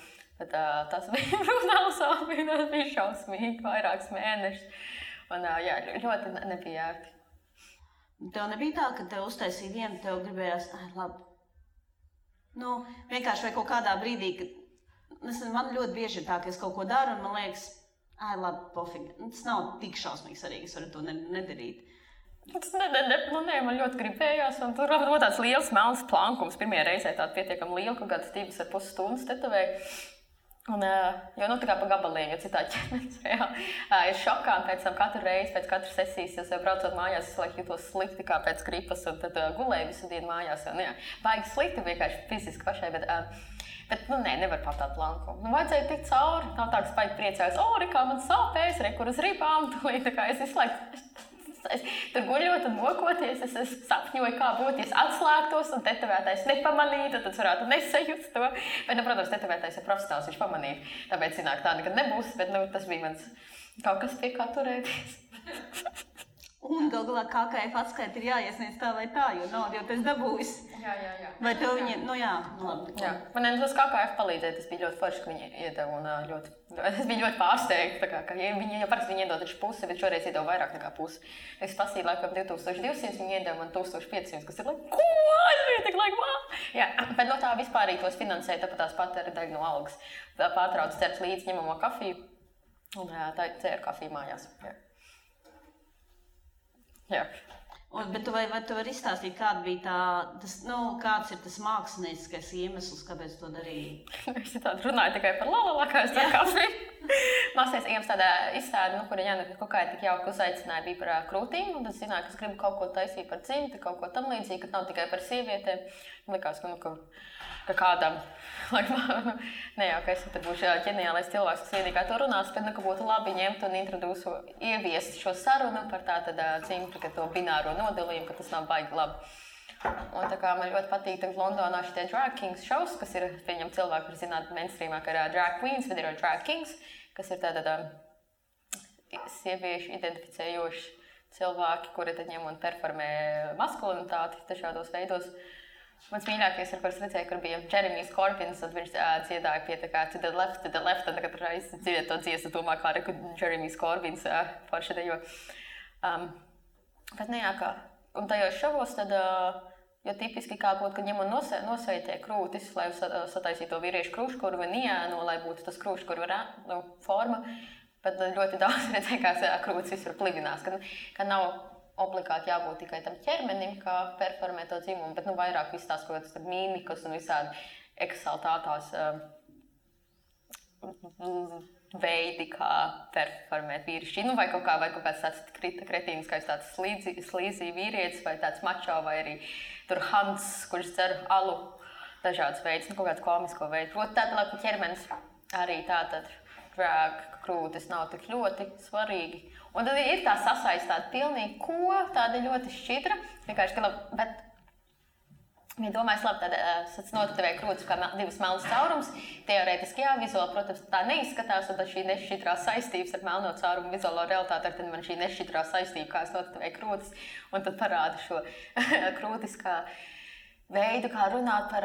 Speaker 2: Bet tas bija brutāli sāpīgi, tas bija šausmīgi, vairākus mēnešus. Un jā, ļoti nebija ērti.
Speaker 1: Tev nebija tā, ka tev uztaisīja vienu, tev gribējās, labi. Nu, vienkārši vai kaut kādā brīdī, kad man ļoti bieži ir tā, ka es kaut ko daru un man liekas, labi, pofīgi. Tas nav tik šausmīgi svarīgi, es varu to nedarīt.
Speaker 2: Man ļoti gribējās, un tur bija tāds liels melns plankums. Pirmajā reizē tāda pietiekami liela, kaut kādas 2,5 stundas tetovēja. Un, jo tā kā pa gabaliem, jo citādi ķermenis reāli ir šokā, un pēc tam katru reizi, pēc katras sesijas, es jau braucot mājās, es jūtos slikti kā pēc gripas, un tad gulēju visu dienu mājās. Un, jā, baigi slikti vienkārši fiziski pašai, bet nevar pat tādu plankumu. Vajadzēja tikt cauri, nav tā, ka baigi priecājos, kā man sāpēs, kur uz ribām, tā kā es izslēgtu. Tur guļot un mokoties, es sapņoju, kā būtu, ja es atslēgtos un tetovētājs nepamanītu, tad es varētu nesajust to. Bet, protams, tetovētājs ir profesionāls, viņš pamanīja. Tāpēc zināk, tā nekad nebūs, bet tas bija mans kaut kas pie kā turēties.
Speaker 1: Un gal galā KKF atskaita ir jāiesniedz tā vai tā, jo naudu jau tas dabūjis.
Speaker 2: Jā.
Speaker 1: Vai tev viņi, labi.
Speaker 2: Jā, man tas KKF palīdzēja, tas bija ļoti forši, ka viņi iedeva un es biju ļoti pārsteigta, ka viņi jau parasti iedod taču pusi, bet šoreiz iedeva vairāk nekā pusi. Es pasīju laikam 2200, viņi iedeva man 1500, kas ir ko? Es biju tik Jā, bet no tā vispārīgi tos finansēja, tāpat tās pat ir daļa no algas. Pārtrauc cert līdz ņemamo kafiju un tā cēra kafiju mājās. Jā.
Speaker 1: Bet vai tu vari izstāstīt, kāda bija kāds ir tas mākslinieckais iemesls, kāpēc to darīji?
Speaker 2: Es tādu runāju tikai par lalala, kā es tā kafiju. Mākslinieckais iemesls tādā izstāde, kura Jāna kaut kā tik jauki uzaicināja, bija par krūtīm. Un tad zināju, ka es gribu kaut ko taisīt par dzimti, kaut ko tam līdzīgi, ka nav tikai par sievietēm. Likās, ka kādam, ka es tad būšu ģeniālais cilvēks, kas vienīgā to runās, bet ka būtu labi ņemt un ieviest šo sarunu par tātad dzimti, ka to bināro nodalījumu, ka tas nav baigi labi. Un tā kā man ļoti patīk tagad Londonā šitie drag kings shows, kas ir, pieņem cilvēki, kur zināt mainstreamā, ka ir drag queens, bet ir drag kings, kas ir tātad sieviešu identificējoši cilvēki, kuri tad ņem un performē maskulinitāti dažādos veidos. Mans mīļākais, kur es redzēju, kur bija Jeremijs Corbins, un viņš dziedāja pie tā kā to the left, un katru reizi dziedāja to dziesmu, domā, kā arī Jeremijs Corbins forši dejo. Bet un tajos šovos tad, jo tipiski kā būtu, ka ņem un nosveitē krūtis, lai sataisītu to vīriešu krūškurvu un iēno, lai būtu tas krūškurvu forma, bet ļoti daudz redzēja, kā krūtis visur plivinās, ka nav obligāti jābūt tikai tam ķermenim, kā performē to dzimumu, bet vairāk viss tās kaut kādas mīmikas un visādi eksaltātās veidi, kā performēt vīrišķi. Vai kaut kāds tāds kretīniskais tāds slīzī vīrietis, vai tāds mačo, vai arī tur Hans, kurš dzer alu, dažādas veidus, kaut kāds komisko veidu. Proti tāda, ka ķermenis arī tātad drag krūtis nav tik ļoti svarīgi. Un tad ir tā sasaistāta pilnīgi tāda ļoti šķidra, vienkārši, bet ja domājas, labi, tad notevēja krūtis kā divas melnas caurums, teorētiski vizuāli, protams, tā neizskatās, un tad šī nešķidrā saistības ar melno caurumu vizuālo realitāti, tad man šī nešķidrā saistība, kā es notevēju krūtis, un tad parāda šo krūtis kā veidu, kā runāt par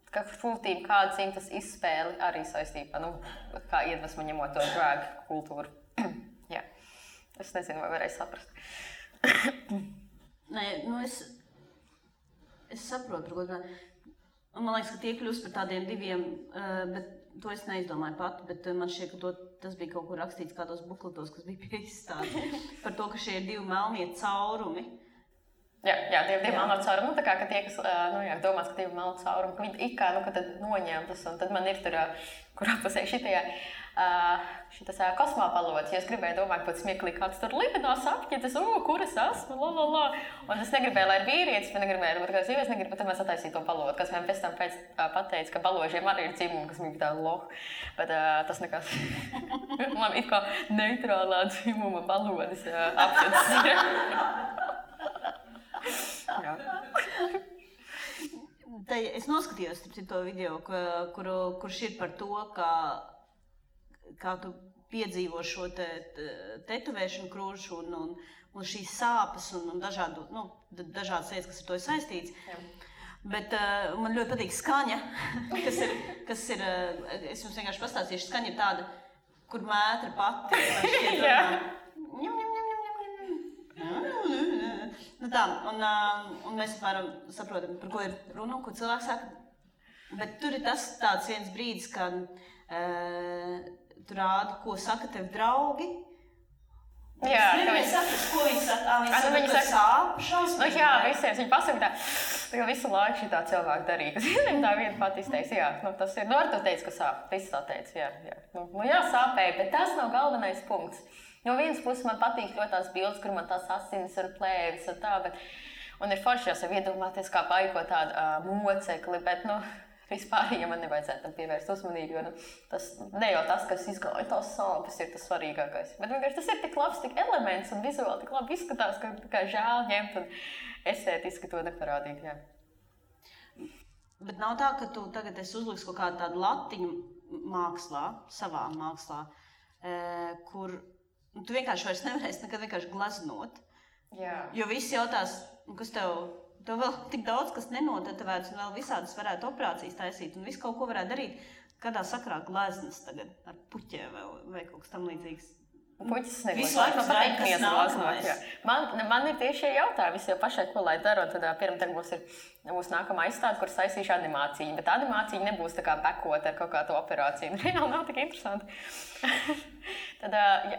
Speaker 2: ka krūtīm kāda dzimtas izspēle arī saistībā, kā iedvesmu ņemot to drag kultūru. Jā, es nezinu, vai varēju saprast.
Speaker 1: Nē, es saprotu, man liekas, ka tie kļūst par tādiem diviem, bet to es neizdomāju pati, bet man šķiet, ka tas bija kaut kur rakstīts kādos bukletos, kas bija pie izstādes, par to, ka šie ir divi melnie caurumi.
Speaker 2: Jā, divi melno caurumi, tā kā, ka tie, kas domās, ka divi melno caurumi, ka viņi ikā, ka tad noņemtas, un tad man ir tur, kurā pusē šitas kosmopalots, ja es gribēju domāt, pēc smieklīgi, kāds tur livinās apķitas, kur es esmu, un es negribēju, lai ir vīrietis, bet negribēju, ka sievietes negrib, bet tad mēs attaisīju to palotu, kas man pēc tam pateica, ka baložiem arī ir dzimumi, kas man bija tā loh, bet tas nekas, man it kā neitrālā dzimuma balodis apķitas ir. Jā.
Speaker 1: Es noskatījos to video, kurš ir par to, kā tu piedzīvo šo tetovēšanu krūšu un šīs sāpes un dažādas lietas, kas ar to ir saistīts. Bet man ļoti patīk skaņa, kas ir es jums vienkārši pastāstīšu, skaņa ir tāda, kur mētra pati. Nu tā, un mēs apmēram saprotam, par ko ir runa, ko cilvēks saka. Bet tur ir tāds viens brīdis, kad tu rādi, ko saka tev draugi.
Speaker 2: Jā,
Speaker 1: ka viņi saka, ko viņi saka. Viņi saka, sāp, šausmīgi.
Speaker 2: Jā, visiem viņi pasaka tā, ka visu laiku šitā cilvēku darīja. Viņam tā viena pat izteica, jā, tas ir, ar to teica, ka sāp, viss tā teica, jā. Jā, sāpēja, bet tas nav galvenais punkts. No vienas puses man patīk ļoti tās bildes, kur man tās asinis un plēvis un tā, un ir forši jau sev iedomāties, kā paiko tādu mocekli, bet, vispār, ja man nevajadzētu tam pievērst uzmanību, jo tas ne jau tas, kas izgāja tās sāpes, ir tas svarīgākais. Bet vienkārši tas ir tik labs, tik elements un vizuāli tik labi izskatās, ka kā žēl ņemt un estētiski to neparādīt, jā.
Speaker 1: Bet nav tā, ka tu tagad esi uzliks kaut kādu tādu latiņu mākslā, savā mākslā, kur tu vienkārši vairs nevarēsi nekad vienkārši glaznot.
Speaker 2: Jā.
Speaker 1: Jo visi jautās, kas tev vēl tik daudz, kas nenotetavēts, un vēl visādas varētu operācijas taisīt, un visu kaut ko varētu darīt. Kādā sakrā gleznas tagad ar puķiem vai kaut kas tam līdzīgs?
Speaker 2: Puķis negleznots. Man ir tieši šie jautājumi, es jau pašai, ko lai daru, un tad pirmā būs nākamā izstāde, kur saistīšu animāciju. Bet animācija nebūs tā kā bekot ar kaut kādu operāciju. Reāli nav tik interesanti. Tad,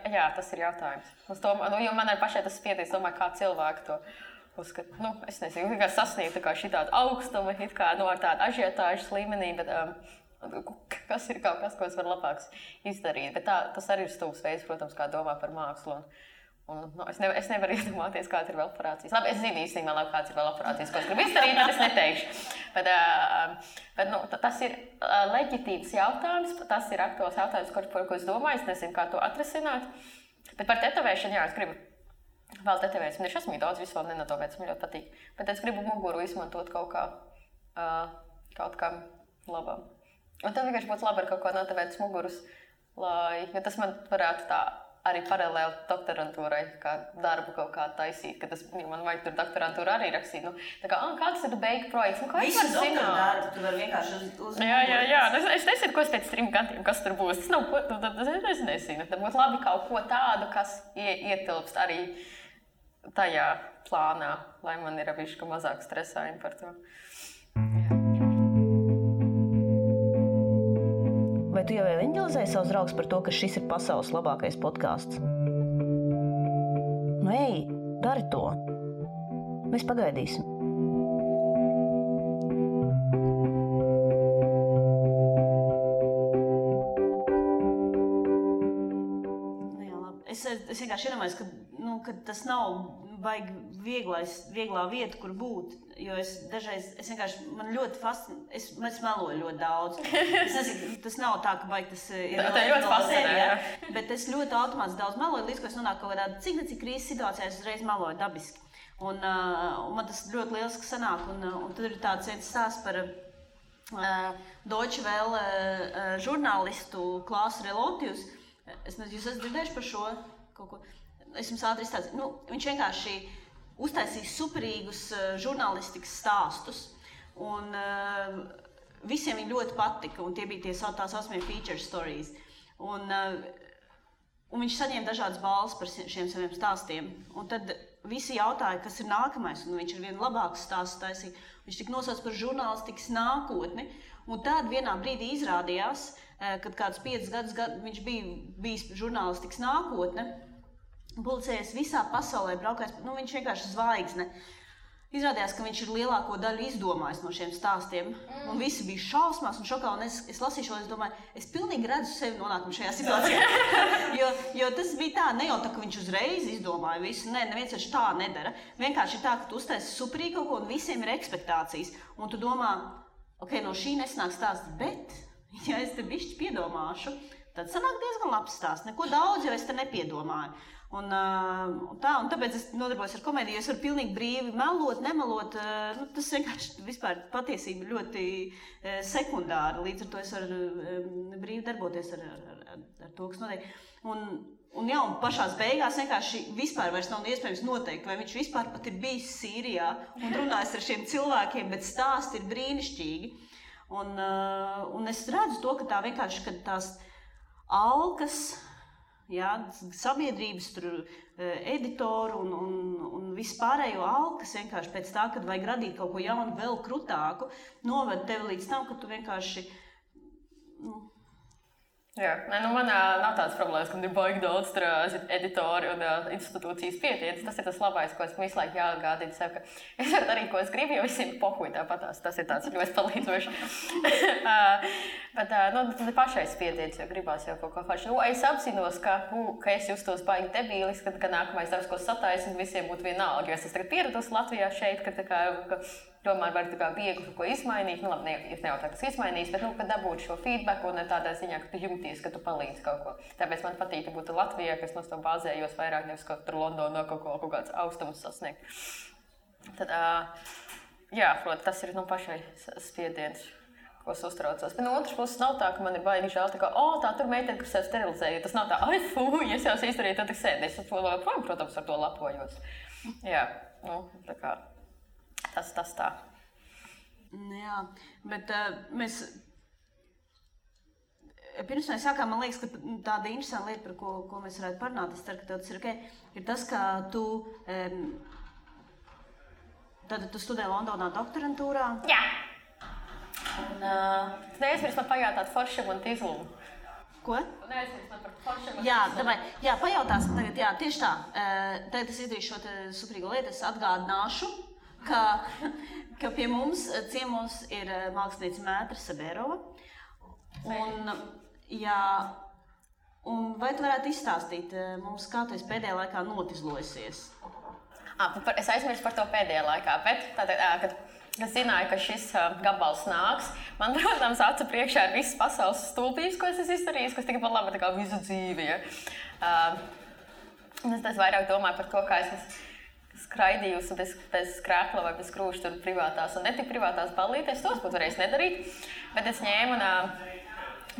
Speaker 2: jā, tas ir jautājums. Jo man arī pašai tas spiedies, domāju, kā cilvēki to uzskat. Es nezinu, kā sasniegt šitādu augstumu, ar tādu ažiotāžas līmenī, bet kas ir kaut kas, ko es varu labāks izdarīt. Bet tas arī ir stūps veids, protams, kā domā par mākslu. Es nevaru iedomāties, kāda ir vēl operācijas. Labi, es zinu īstenībā labi, kāds ir vēl operācijas, ko es gribu izdarīt, bet es neteikšu. Bet tas ir leģitīvs jautājums, tas ir aktuāls jautājums, par ko es domāju, es nezinu, kā to atrisināt. Bet par tetovēšanu, jā, es gribu vēl tetovēs. Man ir šausmīgi daudz visu vēl nenatovēts, man ļoti patīk. Bet es gribu muguru izmantot kaut kam labam. Un tad vienkārši būtu labi ar kaut ko notevētas muguras, jo tas man varētu tā arī paralēli doktorantūrai, kā darbu kaut kā taisīt, ka tas, man vajag tur doktorantūru arī rakstīt. Kāds ir beigu projekts?
Speaker 1: Visu doktordarbu tu vari vienkārši uz
Speaker 2: Jā. Es nezinu, ko pēc 3 gadiem, kas tur būs. Tas nav, es nezinu. Tad būtu labi kaut ko tādu, kas ietilpst arī tajā plānā, lai man ir bišķi mazāk stresājumi par to.
Speaker 3: Vai tu jau evanģelizēji savus draugus par to, ka šis ir pasaules labākais podcasts? Ej, dari to. Mēs pagaidīsim.
Speaker 1: Es vienkārši iedomājos, ka tas nav baigi vieglā vieta, kur būt. Jo man ļoti fascinē, es meloju ļoti daudz. Es nezinu, tas nav tā, ka baigi tas ir
Speaker 2: ļoti fascinē,
Speaker 1: bet es ļoti automātiski daudz meloju, līdz ko es nonāku kaut kādā cik krīzes situācijā, es uzreiz meloju dabiski. Un man tas ļoti lieliski sanāk, un tad ir tāds viens stāsts par Deutsche Welle žurnālistu Klāsu Relotius. Es nezinu, jūs esat dzirdējuši par šo kaut ko? Es jums ātri izstāstīju. Viņš vienkārši uztaisīja superīgus žurnālistikas stāstus, un visiem viņi ļoti patika, un tie bija tās saucamie feature stories. Un viņš saņēma dažādas balvas par šiem saviem stāstiem, un tad visi jautāja, kas ir nākamais, un viņš ar vienu labāku stāstu taisīja. Viņš tika nosaucts par žurnālistikas nākotni, un tad vienā brīdī izrādījās, kad kādus 5 gadus viņš bija bijis žurnālistikas nākotne, publicējies visā pasaulē, braukājis, viņš vienkārši zvaigzne. Izrādījās, ka viņš ir lielāko daļu izdomājis no šiem stāstiem, un visi bija šausmās un šokā, un es lasīju šo, es domāju, es pilnīgi redzu sevi nonākumu šajā situācijā, jo tas bija tā, ne jau tā, ka viņš uzreiz izdomāja visu, neviens taču tā nedara, vienkārši ir tā, ka tu uztaisi superīgi kaut ko, un visiem ir ekspektācijas, un tu domā, ok, no šī nesanāk stāsts, bet, ja es te bišķi piedomāšu, tad sanāk diezgan labs stāsts. Neko daudz jau es te nepiedomāju. Un tāpēc es nodarbojos ar komēdiju, jo es varu pilnīgi brīvi melot, nemelot. Tas vienkārši vispār patiesība ļoti sekundāri. Līdz ar to es varu brīvi darboties ar to, kas notiek. Un pašās beigās vienkārši vispār vairs nav iespējams noteikt, vai viņš vispār pat ir bijis Sīrijā un runājis ar šiem cilvēkiem, bet stāsti ir brīnišķīgi. Un es redzu to, ka tā vienkārši, kad tās alkas, sabiedrības, editoru un vispārējo alkas vienkārši pēc tā, kad vajag radīt kaut ko jaunu, vēl krutāku, noved tevi līdz tam, ka tu vienkārši...
Speaker 2: Jā, man nav tādas problēmas, ka ir baigi daudz editori un institūcijas pietietas. Tas ir tas labais, ko es visu laiku jāatgādinu sev, ka es varu darīt, ko es gribu, jo visiem pohuj tāpatās. Tas ir tāds ļoti palīdzoši. Bet tad pašais pietietas, jo gribās jau kaut ko forši. Es apzinos, ka es justos baigi debīlis, ka nākamais darbs, ko sataisinu, visiem būtu vienalga. Jo es tagad pieradusi Latvijā šeit, ka tomēr var viegli kaut ko izmainīt. Labi, es nevaru tā, kas izmainīs, bet kad dabūt šo feedback un tādā ziņā, ka tu jūties, ka tu palīdzi kaut ko. Tāpēc man patīk, ka būtu Latvijā, ka es no to bāzējos vairāk, nevis kaut tur Londonā kaut kāds austumus sasniegt. Tad, protams, tas ir pašai spiediens, ko es uztraucos. Bet no otras puses nav tā, ka man ir baigi žēl, tā tur meitene, kas sev sterilizēja. Tas nav tā, ja es jau izdarīju, tad tik sēdi. Es, protams, ar to lapojos. Jā, tā kā. Tas tā.
Speaker 1: Jā, bet mēs... Pirms mēs sākām, man liekas, ka tāda interesanta lieta, par ko mēs varētu parunāt, es ceru, ka tev tas ir ok, ir tas, ka tu studē Londonā doktorantūrā.
Speaker 2: Jā. Un neaizmirst man pajautāt foršam un tīzlumu.
Speaker 1: Ko?
Speaker 2: Neaizmirst man par foršam un tīzlumu.
Speaker 1: Jā, pajautāsim tagad, tieši tā. Tagad es izdarīšu šo suprīgo lietu, es atgādināšu, ka pie mums ciemos ir mākslinieca Mētra Sabērova. Un vai tu varētu izstāstīt mums, kā tu esi pēdējā laikā notizlojusies?
Speaker 2: Es aizmirsu par to pēdējā laikā, bet kad es zināju, ka šis gabals nāks, man, protams, acu priekšā ir visas pasaules stulbības, ko es esmu izdarījis, kas tikai par labu tā kā visu dzīvi. Es vairāk domāju par to, kā es skraidījusi bez skrēkla vai bez krūša tur privātās un netik privātās ballītēs. Tos būtu varējis nedarīt, bet es ņēmu un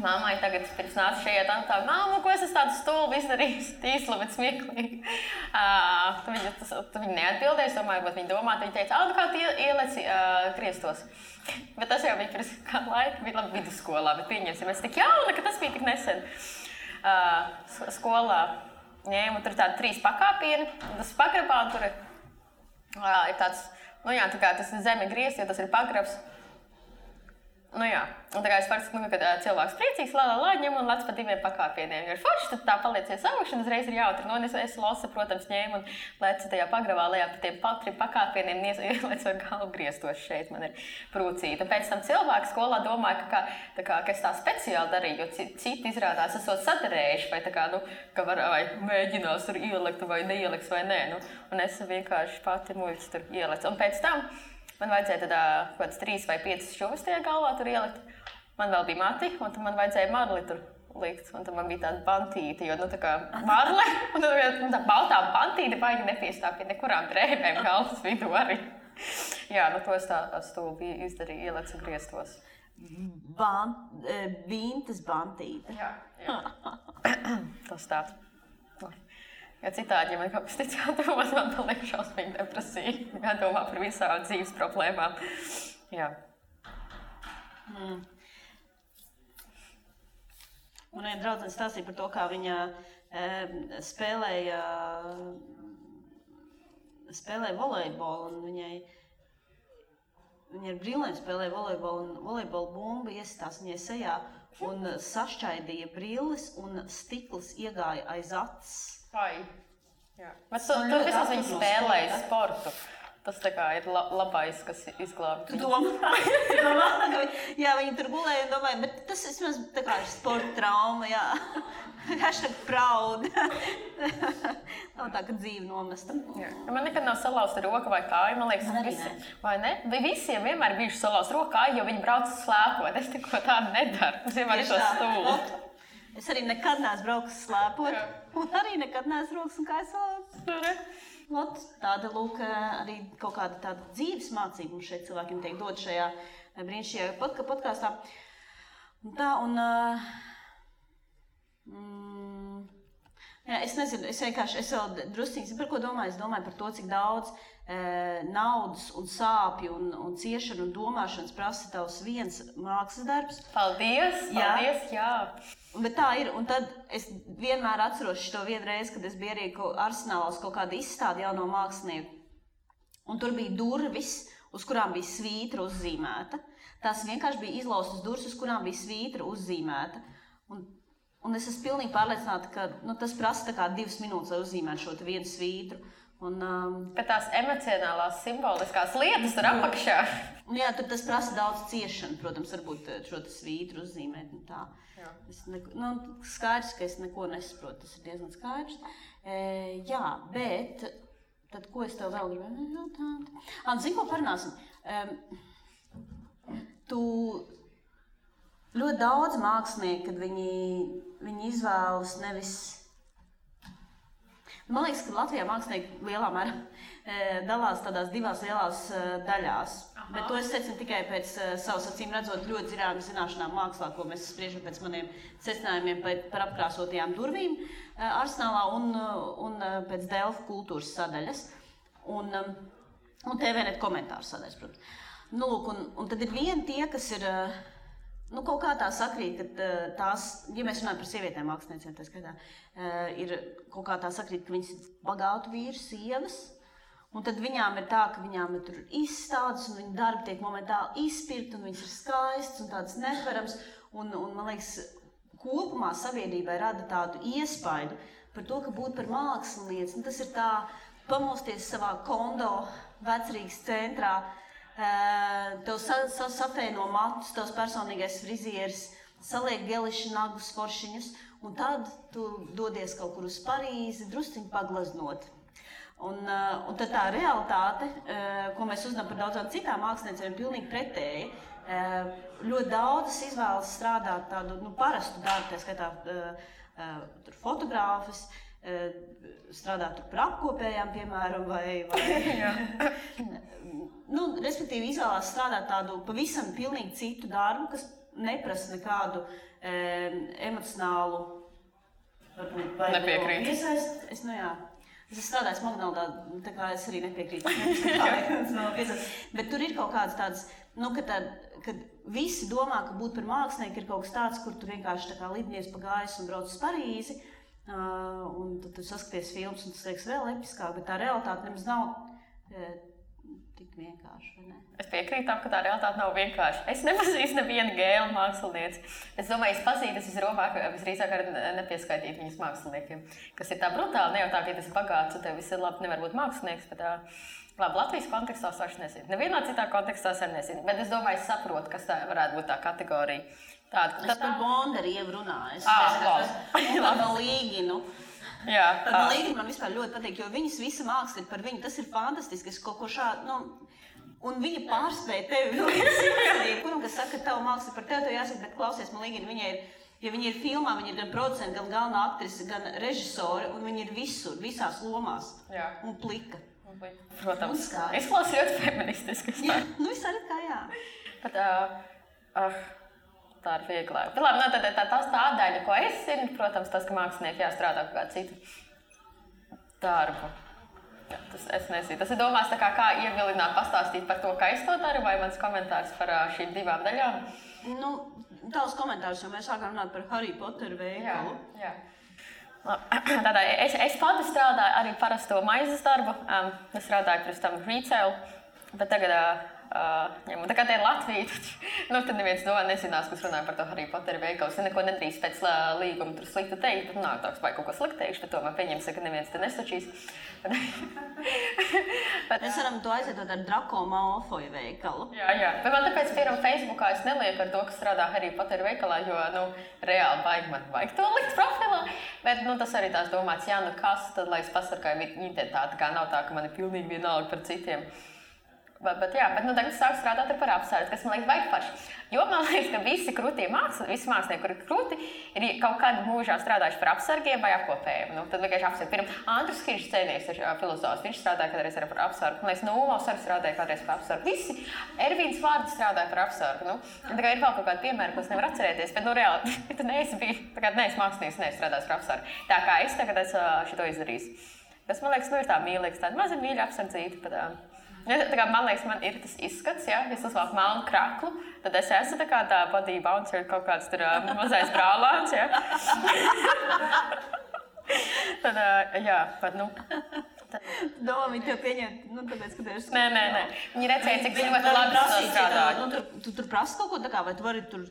Speaker 2: mammai tagad pirms nāca šajā tā, māma, ko es esmu tādu stulbu izdarījis, tīslu, bet smieklīgi. Viņa neatbildēja, domāju, bet viņa domā, viņa teica, kā tu ieleci griestos. Bet tas jau bija pirms kā laika, bija labi vidusskolā, bet pieņemsim, es tik jauna, ka tas bija tik nesen. Skolā ņēmu tur tādi 3 pakāpieni, un tas pagrabā, un tur ir tāds, tā kā tas ir zeme griezts, jo tas ir pagrabs. Un tā kā es parasti, kad cilvēks priecīgs, ņem un lec pa 2 pakāpieniem. Jo ir forši, tad tā paliecies augšana, uzreiz ir jautri. Es losa, protams, ņēmu un lecu tajā pagrabā lejā pa tiem 3 pakāpieniem, ielecu ar galvu griestos šeit, man ir prūcīta. Un pēc tam cilvēki skolā domāja, ka es tā speciāli darīju, jo citi izrādās esot sadarējuši, vai ka vai mēģinās tur ielikt vai neieliks vai nē. Un es vienkārši pati muļķi tur ielecu. Un pēc tam man vajadzēja kaut kāds 3 vai 5 šuvis tajā galvā tur ielikt. Man vēl bija mati, un tad man vajadzēja marli tur likt. Un tad man bija tāda bantīte, jo tā kā marle, un tā baltā bantīte baigi nepiestāv pie nekurām drēbēm galvas vidū arī. Jā, to es tā stulbi izdarīju, ielecu griestos.
Speaker 1: Vintas bantīte.
Speaker 2: Jā. Tas tā. Ja citādi, ja man kaut kas tic jādomās, man paliek šausmīgi depresija. Jādomā par visām dzīves problēmām. Jā.
Speaker 1: Man viena draudzene stāstīja par to, kā viņa spēlēja volejbolu, un viņa ar brillēm spēlēja volejbolu, un volejbola bumba iesitās viņai sejā un sašķaidīja brilles, un stikls iegāja aiz acis.
Speaker 2: Vai. Jā. Bet tu vismaz viņi spēlēja sportu. Tas tā kā ir labais, kas izglābj.
Speaker 1: Tu domā? Jā, viņi tur gulēja un domāja, bet tas vismaz tā kā ir sporta trauma, jā. Hashtag proud. Nav tā, ka dzīve nomesta.
Speaker 2: Jā. Man nekad nav salauzta roka vai kāja, man liekas, vai ne? Visiem vienmēr bijuši salauzta roka kāja, jo viņi brauc slēpot. Es tikko tādu nedaru. Tas vienmēr ir to stūlu.
Speaker 1: Es arī nekad neesmu braukusi slēpot. Un arī nekad neesmu braukusi un kājas vārds. Ot, tāda, lūk, arī kaut kāda tāda dzīves mācība mums šeit cilvēkiem tiek dot šajā brīnišķīgajā podkāstā. Un tā, jā, es nezinu, es vēl drusciņas, par ko domāju? Es domāju par to, cik daudz naudas un sāpju un ciešanu un domāšanas prasa tavs viens mākslas darbs.
Speaker 2: Paldies, jā.
Speaker 1: Bet tā ir, un tad es vienmēr atceros šo vienu reizi, kad es biju arī Arsenālā uz kaut kādu izstādi jauno mākslinieku. Un tur bija durvis, uz kurām bija svītra uzzīmēta. Tās vienkārši bija izlaustas durvis, uz kurām bija svītra uzzīmēta. Un es esmu pilnīgi pārliecināta, ka tas prasa tā kā 2 minūtes, lai uzzīmētu šo vienu svītru.
Speaker 2: Ka tās emocionālās, simboliskās lietas tur apakšā.
Speaker 1: Jā, tur tas prasa daudz ciešanu, protams, varbūt šo svītru uzzīmēt un tā. Skaidrs, ka es neko nesaprotu, tas ir diezgan skaidrs. Jā, bet tad ko es tev vēl gribēju jautāt? Zini, ko parunāsim? Tu ļoti daudz mākslinieki, kad viņi izvēlas nevis... Man liekas, ka Latvijā mākslinieki lielā mērā dalās tādās 2 lielās daļās. Bet to es secinu tikai pēc savas acīm redzot ļoti zināšanām mākslā, ko mēs spriežam pēc maniem secinājumiem par apkrāsotajām durvīm Arsenālā un pēc Delfu kultūras sadaļas. Un TVNet komentāru sadaļas, protams. Lūk, un tad ir vieni tie, kas ir... kaut kā tā sakrīt, ka tās, ja mēs runājam par sievietēm māksliniecēm, tā skaitā, ir kaut kā tā sakrīt, ka viņas ir bagātu vīru sievas, un tad viņām ir tā, ka viņām ir tur izstādes, un viņu darbi tiek momentāli izpirkt, un viņas ir skaistas un tādas neparams, un man liekas, kopumā sabiedrībai rada tādu iespaidu par to, ka būt par mākslinieci, tas ir tā pamosties savā kondo vecrīgas centrā, tev safēno matus, tavs personīgais frizieris, saliek geliši nagus foršiņus, un tad tu dodies kaut kur uz Parīzi, drusciņu paglaznot. Un tad tā realitāte, ko mēs uzzinām par daudzām citām māksliniecēm, ir pilnīgi pretēji. Ļoti daudzas izvēlas strādāt tādu parastu darbu, tā skaitā fotogrāfus, strādāt par apkopējām, piemēram, vai respektīvi izvēlās strādāt tādu pavisam pilnīgi citu darbu, kas neprasa nekādu emocionālu
Speaker 2: nepiekrīt.
Speaker 1: Es strādāju Magnoldā, tā kā es arī nepiekrītu. Bet tur ir kaut kāds tāds, kad visi domā, ka būt par mākslinieku ir kaut kas tāds, kur tu vienkārši tā kā lidnieks pa gaisu un brauc uz Parīzi, un tad tu saskaties filmas, un tas liekas vēl episkāk, bet tā realitāte nemaz nav tik vienkārši, vai ne?
Speaker 2: Es piekrītu tam, ka tā realitāte nav vienkārši. Es nepazīstu nevienu gēlu mākslinieci. Es domāju, es pazītu, es visdrīzāk arī nepieskaitīt viņus māksliniekiem, kas ir tā brutāli, ne jau tā, ka tas ir bagāts, un tev viss ir labi, nevar būt mākslinieks, bet labi, Latvijas kontekstā es vairs nezinu. Nevienā citā kontekstā es arī nezinu, bet es domāju, es saprotu, kas tā varētu būt tā kategorija.
Speaker 1: Es par Bondarievu runāju. Par Līginu. Tad Līgina man vispār ļoti patīk, jo viņas visa māksla ir par viņu. Tas ir fantastiski, es kaut ko šādu, un viņa pārspēja tevi. Kuram, kas saka, ka tava māksla par tevi, tev jāsaka, bet klausies, man Līgina, ja viņa ir filmā, viņa ir gan producenta, gan galvenā aktrise, gan režisore, un viņa ir visur, visās lomās.
Speaker 2: Jā.
Speaker 1: Un plika.
Speaker 2: Protams. Izklausās ļoti feministiski.
Speaker 1: Jā, visā ir kā jā.
Speaker 2: Bet, tā ir vieglāk. Bet labi, tā daļa, ko es zinu, protams, tas, ka mākslinieki jāstrādā kaut kādu citu darbu. Jā, es nezinu. Tas ir domās tā kā ievilināt, pastāstīt par to, kā es to daru, vai mans komentārs par šīm 2 daļām?
Speaker 1: Tavs komentārs, jo mēs sākām runāt par Harry Potteru veikalu.
Speaker 2: Jā. Tādā, es pati strādāju arī parasto maizes darbu. Es strādāju pirms tam retail, bet tagad tā kā te ir Latvija, tad neviens nezinās, kas runāja par to Harry Potteru veikalu. Es neko nedrīkst pēc līguma tur sliktu teikt, tad nāk tāds, vai kaut ko sliktu teikšu, bet tomēr pieņemsim, ka neviens te nesačīs.
Speaker 1: Mēs varam to aizvietot ar Draco Malfoy veikalu.
Speaker 2: Jā. Bet man tāpēc, piemēram, Facebookā es nelieku ar to, kas strādā Harry Potteru veikalā, jo, reāli man vajag to likt profilā. Bet, tas arī tās domāts, kas, tad, lai es pasargāju identitāti, kā nav tā, ka man ir pilnīgi vienalga par citiem. Bet tagad es sāku strādāt par apsargu, kas man liekas baigi paši. Jo man liekas, ka visi mākslinieki, kuri ir krūti, ir kaut kādā mūžā strādājuši par apsargiem vai apkopējiem. Tad vienkārši apsargi. Pirmā Andrus Kiršs Cēnieks ir filozofs, viņš strādāja kādreiz par apsargu. Man liekas, Ulovs arī strādāja kādreiz par apsargu. Visi Ervīns Vārds strādāja par apsargu. Ir vēl kaut kādi piemēri, ko es nevaru atcerēties, bet reāli, tu neesi mākslinieks, neesi strādājis par apsargu. Tā kā es tagad šito izdarīju. Tas, man liekas, ir tā mīlīgs, tāda maza mīļa apsardzīta. Man liekas, man ir tas izskats, ja es uzvalku melnu kraklu, tad es esmu tā body bouncer, kaut kāds tur mazais brālāns, ja.
Speaker 1: Domā, viņi tev pieņem, tāpēc, ka tev ir...
Speaker 2: Nē. Viņi redzēja, cik ļoti labi strādāju.
Speaker 1: Tu tur prasi kaut ko tā kā, vai tu vari tur...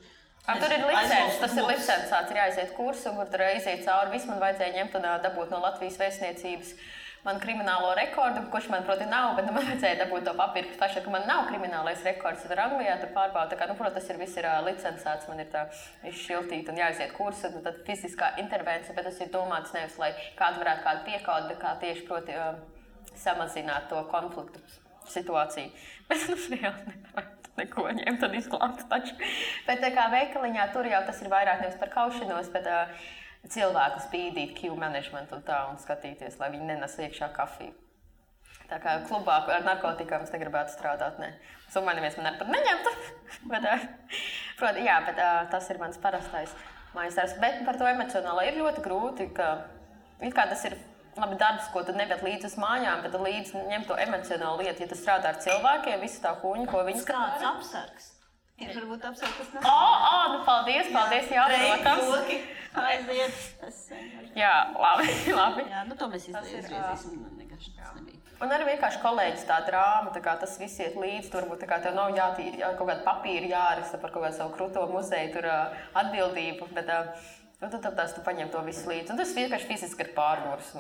Speaker 2: Tur ir licences, tas ir licencāts, ir jāiziet kursu, kur tur iziet cauri. Viss man vajadzēja ņemt un dabūt no Latvijas vēstniecības manu kriminālo rekordu, kurš man, proti, nav, bet man vajadzēja dabūt to papīru, kas paša, ka man nav kriminālais rekords. Tur Anglijā tur pārbauda, tā kā, protams, tas viss ir licencēts, man ir tā izšiltīt un jāiziet kursu, un tad fiziskā intervencija, bet tas ir domāts nevis, lai kādu varētu kādu piekaut, bet kā tieši, proti, samazināt to konfliktu situāciju. Bet, reāli nevarētu neko ņemt un izglābt taču. Bet tā kā veikaliņā tur jau tas ir vairāk nevis par kaušanos, bet cilvēku spīdīt, queue management un tā, un skatīties, lai viņi nenes iekšā kafiju. Tā kā klubā ar narkotikām es negribētu strādāt, ne. Summā neviens man ar par neņemtu, bet tas ir mans parastais mājas darbs. Bet par to emocionālo ir ļoti grūti, ka tas ir labi darbs, ko tu nevēt līdz uz mājām, bet līdz ņem to emocionālu lietu, ja tu strādā ar cilvēkiem, visu tā kuņu, ko viņi
Speaker 1: strādā. Kāds apsargs? Ir varbūt apsargs, kas nav.
Speaker 2: Paldies, jā, protams.
Speaker 1: Aiziet.
Speaker 2: Jā, labi.
Speaker 1: Jā, to mēs izgriezīsim, vienkārši tas nebija.
Speaker 2: Un arī vienkārši kolēģis tā drāma, tā kā tas viss iet līdz, turbūt tā kā tev nav kaut kāda papīra jāraksta par kaut kādu savu kruto muzeju, tur atbildību, bet tad tu paņem to visu līdzi. Un tas vienkārši fiziski ir pārgurs,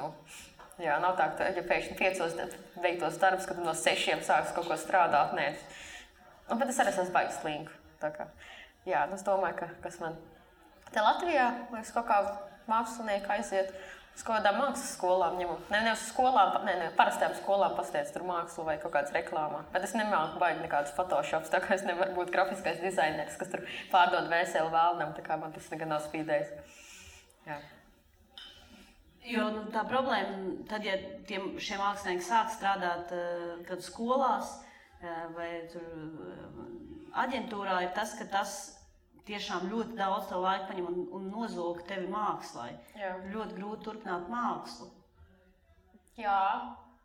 Speaker 2: Jā, nav tā, ka ja pēkšņi 5 veiktos darbus, kad tu no 6 sāks kaut ko strādāt, nē. Bet es arī esmu baigi slingu. Jā, es domāju, ka kas man te Latvijā, liekas, kaut kā mākslinieki aiziet uz kaut kādām mākslas skolām ņemot. Ne uz skolām, parastajām skolām pastiec tur mākslu vai kaut kādas reklāmā. Bet es nemāku baigi nekādus photoshops, tā kā es nevaru būt grafiskais dizaineris, kas tur pārdod vēseli vēlnam, tā kā man tas negan nav spīdējis. Jā.
Speaker 1: Jo tā problēma, tad, ja šie mākslinieki sāk strādāt kad skolās vai tur aģentūrā, ir tas, ka tas tiešām ļoti daudz tev laika paņem un nozog tevi mākslai. Jā. Ļoti grūti turpināt mākslu.
Speaker 2: Jā,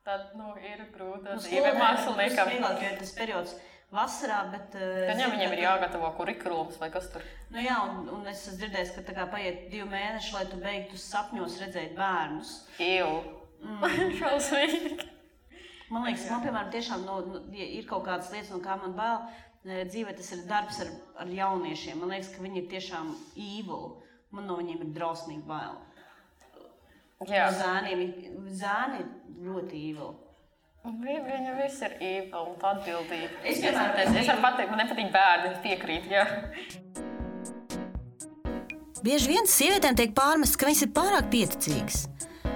Speaker 2: tad ir grūti dzīve māksliniekam.
Speaker 1: Vieglāk, jo ir tas periods vasarā, bet...
Speaker 2: Viņiem ir jāgatavo kurikulums vai kas tur?
Speaker 1: Jā, un es esmu dzirdējis, ka tā kā paiet 2 mēneši, lai tu beigtu sapņos redzēt bērnus.
Speaker 2: Šausmīgi.
Speaker 1: Man liekas, man, piemēram, tiešām ir kaut kādas lietas, no kā man bail. Dzīvē tas ir darbs ar jauniešiem. Man liekas, ka viņi ir tiešām evil. Man no viņiem ir drausmīgi bail.
Speaker 2: Jā.
Speaker 1: Zēni ir ļoti evil.
Speaker 2: Viņi visi ir evil un atbildīgi. Es varu pateikt, man nepatīk bērni, es piekrītu, jā.
Speaker 3: Bieži vien sievietēm tiek pārmests, ka viņas ir pārāk pieticīgas.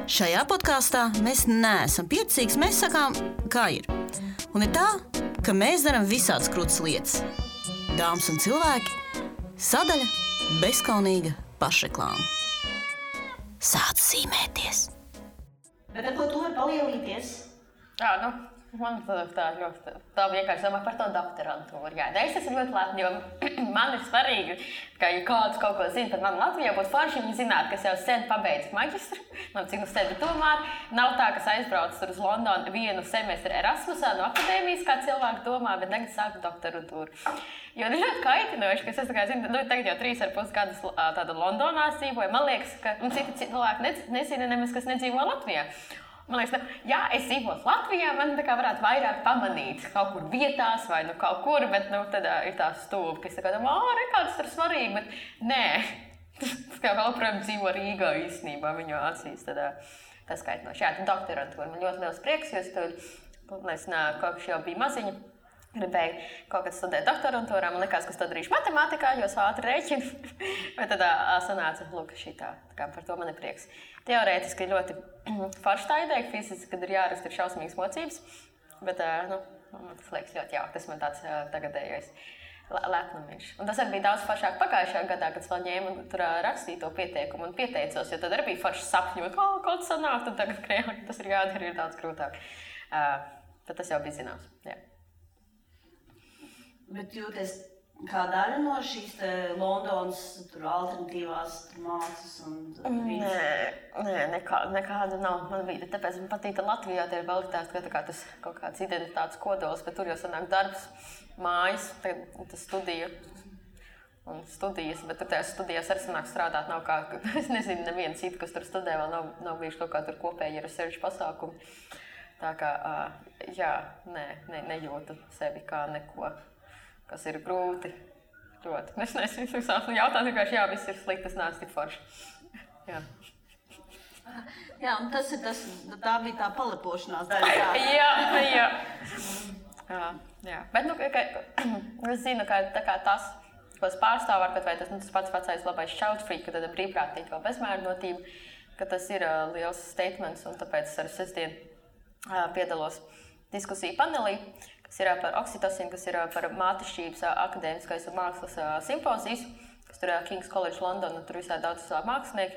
Speaker 3: Šajā podkāstā mēs neesam pieticīgas, mēs sakām, kā ir. Un ir tā, ka mēs darām visādas krūtas lietas. Dāmas un cilvēki, sadaļa bezkaunīga pašreklāma. Sāc zīmēties.
Speaker 1: Bet ar ko tu vari palielīties?
Speaker 2: Man tā vienkārši domā par to doktorantūru. Jā, es esmu ļoti lepna, jo man ir svarīgi, ka ja kāds kaut ko zina par mani Latvijā, būtu forši viņi zinātu, kas jau sen pabeidz maģistru, man cik nu sēdi tomēr. Nav tā, kas aizbrauc tur uz Londonu 1 semestri Erasmusā no akadēmijas, kā cilvēki domā, bet tagad sāku doktorantūru. Jo ir ļoti kaitinoši, ka es zinu, tagad jau 3,5 gadus tāda Londonā dzīvoju. Man liekas, ka citi cilvēki nezina nemaz, kas nedzīvo Latvijā. Man liekas, ja es dzīvotu Latvijā, man tā kā varētu vairāk pamanīt kaut kur vietās vai kaut kur, bet tad ir tā stūba, kas tā kā domā, kāds tur svarīgi, bet nē. Tas kā vēl projām dzīvo Rīgā īstenībā, viņu acīs, tas kaitinoši. Jā, tad doktorantūra man ļoti liels prieks, jo es tur, kopš jau bija maziņa, gribēju kaut kad studēt doktorantūrā, man likās, ka es to darīšu matemātikā, jo es ātri rēķinu, bet tad sanāca, šitā, tā kā par to man ir prieks. Teorētiski ir ļoti forši tā ideja, fiziski, kad ir jāraksta ir šausmīgas mocības, bet Tas liekas ļoti jauki, tas man tāds tagadējais lepnumiņš. Un tas arī bija daudz foršāk pagājušajā gadā, kad es vēl ņēmu tur rakstīju to pieteikumu un pieteicos, jo tad arī bija forši sapņot, kaut sanāk, tad tagad krējāk, tas ir jādara, ir daudz grūtāk. Bet tas jau bija zināms, jā.
Speaker 1: Bet jūties kā daļa no šīs Londonas alternatīvās mākslas un
Speaker 2: Nē, nekāda nav man vide. Tāpēc man patīk Latvijā, tie ir kvalitātes, ka tas kaut kāds identitātes kodols, bet tur jau sanāk darbs, mājas, tas studija un studijas, bet tur tajās studijās arī sanāk strādāt nav kā, es nezinu, neviena cita, kas tur studē, vēl nav bijuši kaut kā tur kopēji research pasākumi. Tā kā, jā, nejūtu sevi kā neko. Kas ir grūti. Ļoti. Es nezinu, jautāt vienkārši, jā, viss ir slikti, tas neesmu tik forši. Jā.
Speaker 1: Jā, un tā bija tā palepošanās daļa.
Speaker 2: Jā. Bet, es zinu, ka tā kā tas, ko es pārstāvu, vai tas pats vecais labais šautfrīk, ka tad brīvprātīgi vēl bezmērnotība, ka tas ir liels statements, un tāpēc es arī sestdien piedalos diskusiju panelī, kas ir par oksitocīnu, kas ir par mātešķības akadēmiskais un mākslas simpozijas, kas tur King's College London, un tur visā daudz mākslinieki.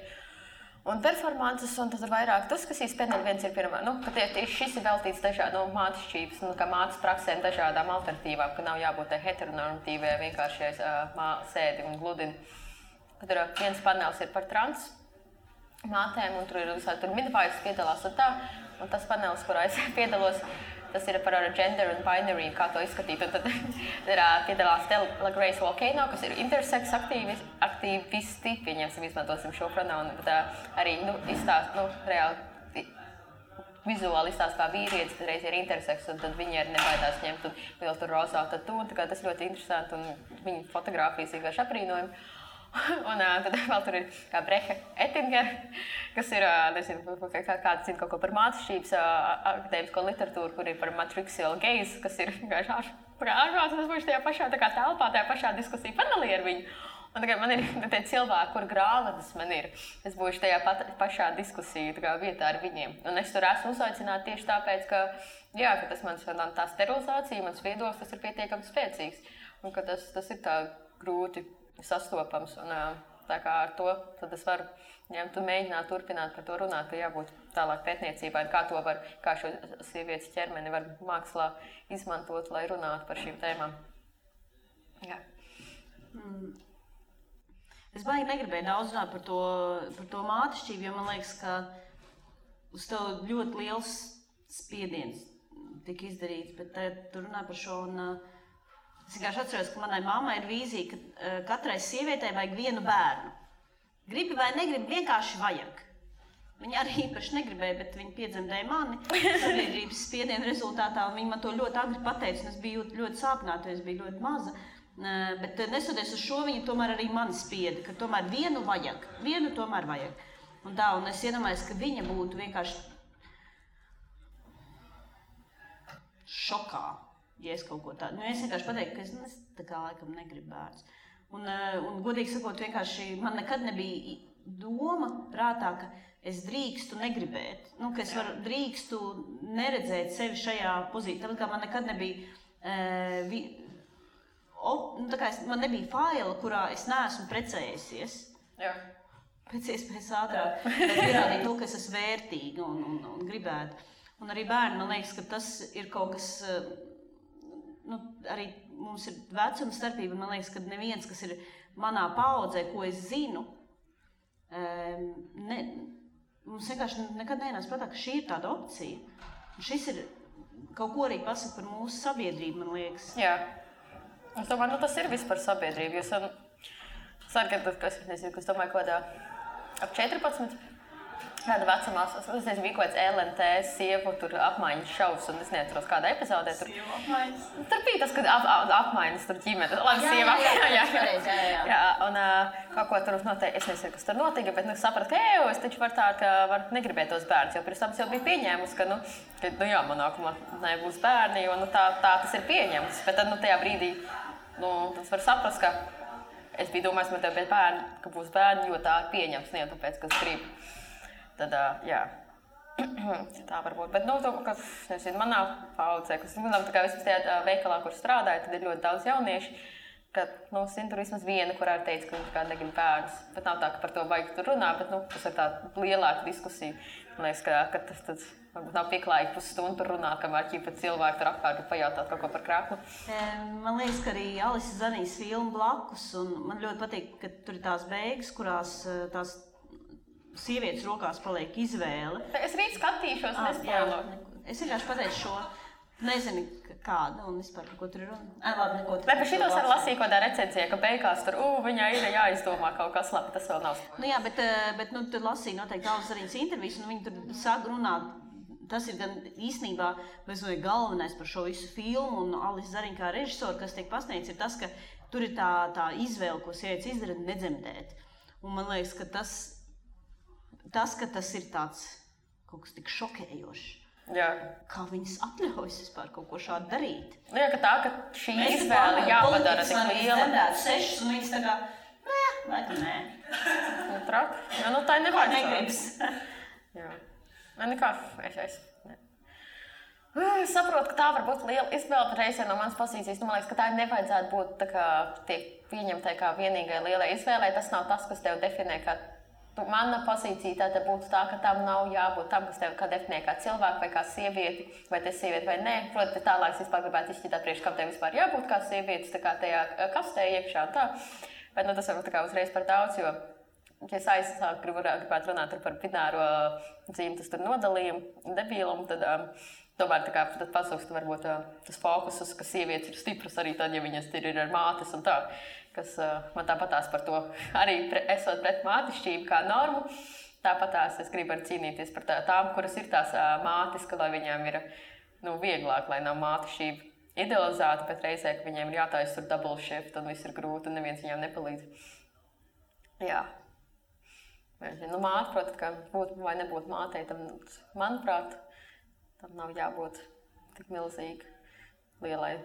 Speaker 2: Un performances, un tad ir vairāk diskusijas, pēdējais viens ir pirmā, ka tieši šis ir veltīts dažādām mātešķības, kā mātes praksēm, dažādām alternatīvām, ka nav jābūt heteronormatīvai, vienkārši sēdi un gludini. Tur viens panels ir par trans mātēm, un tur ir visādi midwives piedalās un tā, un tas panels, kurā es piedalos, tas ir par gender un binary, kā to izskatīt. Un tad piedalās Stella Grace Volcano, kas ir intersex aktīvisti, pieņemsim, izmantosim šo pronaunu, bet arī reāli vizuāli izstāst kā vīrietis, tad reiz ir intersex, un tad viņi arī nebaidās ņemt un vēl tur rozā tatu, un tas ļoti interesanti, un viņa fotogrāfijas vienkārši aprīnojumi. Un tad vēl tur ir kā Breha Ettinger, kas ir, nezinu, kāds zina kaut ko par mātešķības akadēmisko literatūru, kur ir par matrixial gaze, kas ir vienkārši ārprāts, un es būšu tajā pašā telpā, tajā pašā diskusiju panelī ar viņu. Un tagad man ir tie cilvēki, kur grāmatas man ir. Es būšu tajā pašā diskusiju vietā ar viņiem. Un es tur esmu uzaicināta tieši tāpēc, ka tas mans tā sterilizācija, mans viedoklis, tas ir pietiekami spēcīgs. Un ka tas ir tā grūti sastopams, un tā kā ar to tad es varu ņemt un mēģināt turpināt par to runāt, ka jābūt tālāk pētniecībai, kā šo sievietes ķermeni var mākslā izmantot, lai runātu par šīm tēmām. Jā.
Speaker 1: Es baigi negribēju daudz runāt par to mātešķību, jo man liekas, ka uz tev ļoti liels spiediens tika izdarīts, bet tu runā par šo un es vienkārši atceros, ka manai mammai ir vīzija, ka katrai sievietei vajag vienu bērnu. Gribi vai negribi, vienkārši vajag. Viņa arī īpaši negribēja, bet viņa piedzemdēja mani sabiedrības spiediena rezultātā, un viņa man to ļoti agri pateica, un es biju ļoti sāpināta, jo es biju ļoti maza. Bet nesoties uz šo, viņa tomēr arī mani spieda, ka tomēr vienu tomēr vajag. Un es iedomājos, ka viņa būtu vienkārši šokā. Ja es kaut ko tādu, es vienkārši pateiktu, ka es tā kā laikam negribu bērns. Un godīgi sakot, vienkārši man nekad nebija doma prātā, ka es drīkstu negribēt. Ka es drīkstu neredzēt sevi šajā pozīcijā. Tāpēc kā man nekad nebija, man nebija faila, kurā es neesmu precējusies.
Speaker 2: Jā.
Speaker 1: Pēc iespējas ātrāk, lai pierādītu to, ka es esmu vērtīga un gribētu. Un arī bērni, man liekas, ka tas ir kaut kas... arī mums ir vecuma starpība, man liekas, ka neviens, kas ir manā paaudzē, ko es zinu, mums vienkārši nekad nenāc prātā, ka šī ir tāda opcija. Un šis ir kaut ko arī pasaka par mūsu sabiedrību, man liekas.
Speaker 2: Jā. Es domāju, tas ir viss par sabiedrību. Jūs es domāju, kādā ap 14. Kāda vecumā, es nezinu, bija kaut kāds LNT sievu tur apmaiņas šovs, un es neatceros kādā epizodē tur.
Speaker 1: Sievu apmaiņas?
Speaker 2: Tur bija tas, kad apmaiņas tur ģimene. Labi, sieva. Jā, un kaut ko tur noteikti, es nezinu, kas tur notika, bet sapratu, ka es taču varu negribēt tos bērnus, jo pirms tam es jau biju pieņēmusi, ka jā, man nākamā nebūs bērni, jo tā tas ir pieņemts. Bet tad tajā brīdī, tas var saprast, ka es biju domājis, man tev bērni, ka būs bērni, jo tā ir pieņemts, ne jau tāpēc, ka es gribu. Tad, jā. Tā varbūt, bet, nezinu, man nav paudzē, kas, tā kā vismaz tajā veikalā, kur strādāju, tad ir ļoti daudz jaunieši, ka, zinu, tur vismaz viena, kurā ir teica, ka viņš kā negrib bērnus, bet nav tā, ka par to vajag tur runāt, bet, tas ir tā lielāka diskusija. Man liekas, ka tas varbūt nav pieklājīgi pusstundu tur runāt, kamēr ķipa cilvēki tur apkārt pajautāt kaut ko par krāklu.
Speaker 1: Man liekas, ka arī Alisa Zanijas filma blakus, un man ļoti patīk, ka tur ir tās beigas, kurās tās sievietes rokās paliek izvēle.
Speaker 2: Es rīt skatīšos, nespēloju.
Speaker 1: Es vienkārši pateicu šo, nezinu kāda un vispār par ko tur ir runa. Labi, neko.
Speaker 2: Bet par šitos arī lasīju kādā recenzijā, ka beigās tur, viņai ir jāizdomā kaut kas labi, tas vēl nav.
Speaker 1: Jā, bet tur lasīju noteikti Alisa Zanijas intervijas, un viņi tur sāk runāt. Tas ir gan īstenībā galvenais par šo visu filmu, un Alisa Zariņa kā režisora, kas tiek pasniegts, ir tas, ka tur ir tā izvēle, ko sievietes izdara, nedzemdēt. Un man liekas, ka tas ir tāds kaut kas tik šokējošs.
Speaker 2: Jā.
Speaker 1: Kā viņas atļaujas vispār kaut ko šādu darīt.
Speaker 2: Jā, ka šī izvēle jāpadara tik liela.
Speaker 1: Mēs sešas, un viņas tā kā, nē.
Speaker 2: Trāk? Jā, tā ir nevajag.
Speaker 1: Negribas.
Speaker 2: Jā. Nekā, es saprotu, ka tā var būt liela izvēle, bet reizē no manas pozīcijas, man liekas, ka tā nevajadzētu būt tā kā tiek pieņemtai kā vienīgai lielai izvēlei. Tas nav tas, kas tev definē, kā mana pozīcija tāda būtu tā, ka tam nav jābūt tam, kas tev kā definē kā cilvēku vai kā sievieti, vai te sievieti vai nē. Protams, tālāk es vispār gribētu izšķirtāt priekš, kam tev vispār jābūt kā sievietes, tā kā tajā kastē iekšā un tā. Bet tas varbūt tā kā uzreiz par daudz, jo ja es aizsāku gribētu runāt par bināro dzimtas nodalījumu, debīlumu, tad tomēr tā kā tad pasūkst varbūt tas fokusus, ka sievietes ir stipras arī tad, ja viņas ir ar mātes un tā, kas man tāpatās par to arī esot pret mātišķību kā normu, tāpatās es gribu arī cīnīties par tām, kuras ir tās mātes, ka lai viņām ir vieglāk, lai nav mātišķība idealizēta, bet reizē, ka viņiem ir jātājas tur double shift un viss ir grūti un neviens viņām nepalīdz. Jā. Māte, protams, ka būt vai nebūt mātei, tam, manuprāt, tam nav jābūt tik milzīgi lielai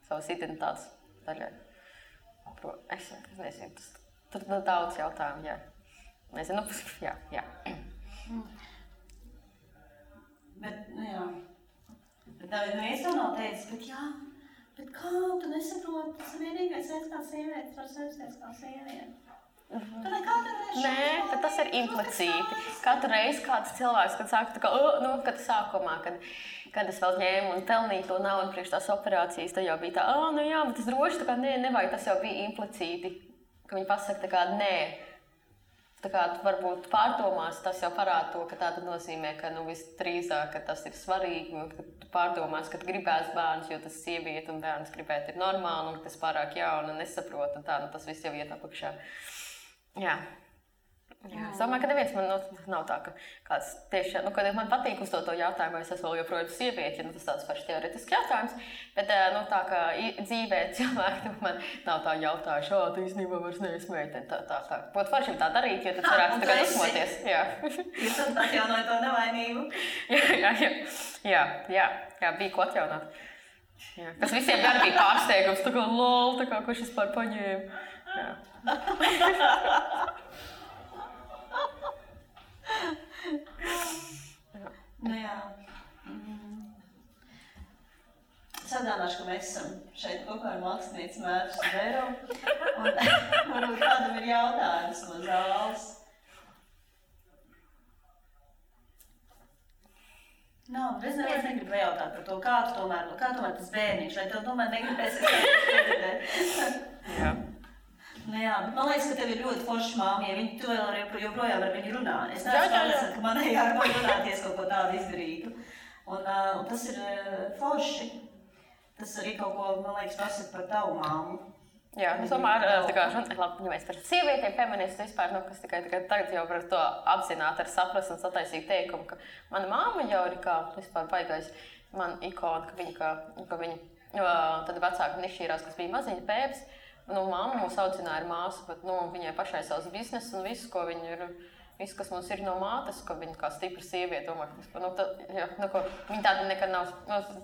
Speaker 2: savas identitātes daļai. Es nezinu, tur daudz jautājumu, jā. Nezinu, jā.
Speaker 1: Bet, jā. Bet neviens to nav teicis, bet kā tu nesaproti, tas ir vienīgais veids kā sievietes var sajusties kā sieviete.
Speaker 2: Nē, bet tas ir implicīti. Katru reizi kāds cilvēks, kad saka, kad sākumā, kad es vēl ņēmu un pelnīju to naudu priekš tās operācijas, tad jau bija tā, bet tas droši, tā kā nevajag, tas jau bija implicīti, ka viņi pasaka tā kā nē. Tā kā varbūt pārdomās, tas jau parāda to, ka tā tad nozīmē, ka visdrīzāk, ka tas ir svarīgi, ka tu pārdomās, ka gribēs bērns, jo tas sieviete un bērns gribēt ir normāli, un tas pārāk jauna un nesaprot, un tā, tas viss jau iet apakšā. Jā. Es domāju, ka neviens man nav tā, ka kāds tieši, kad man patīk uzdot to jautājumu, vai es esmu vēl joprojām sievieti, tas tāds paši teoretisks jautājums, bet tā kā dzīvē cilvēki man nav tā jautājuši, tu īstenībā vairs neesi meitene, tā. Būtu forši tā darīt, jo tad varētu tagad uzmoties. Jā.
Speaker 1: Jūs tad atjaunoja to nevainību?
Speaker 2: Jā, bija ko atjaunāt. Jā. Kas visiem gan bija pārsteigums, tā kā lol, tā kā kurš vispār paņēma. Jā.
Speaker 1: Jā. Sadānāšu, ka mēs esam šeit kopā ar mākslinieci Mērķu Zvēro. Un varbūt kādam ir jautājums no zāles. Es negribu jautāt par to, kā tomēr tas bērniņš, vai tev tomēr negribēsies
Speaker 2: Jā.
Speaker 1: Jā, bet man liekas, ka tev ir ļoti forša māma, ja tu vēl joprojām ar viņu runā. Es neesmu pārliecināta, ka manai jābūt runāties kaut ko tādu izdarītu. Un tas ir forši. Tas arī kaut ko, man liekas, pasaka par tavu māmu.
Speaker 2: Jā, es domāju, labi, ja mēs par sievietēm, feministu vispār, kas tikai tagad jau var to apzināt ar saprast un sataisīt teikumu, ka mana māma jau ir kā vispār baigais man ikona, ka viņa tad vecāka nešķīrās, kas bija maziņa pēps. Mamma mūs audzināja ar māsu, bet viņai pašai savs biznes un viss, ko viņa ir, viss, kas mums ir no mātes, ka viņa kā stipra sieviete, viņa tāda nekad nav,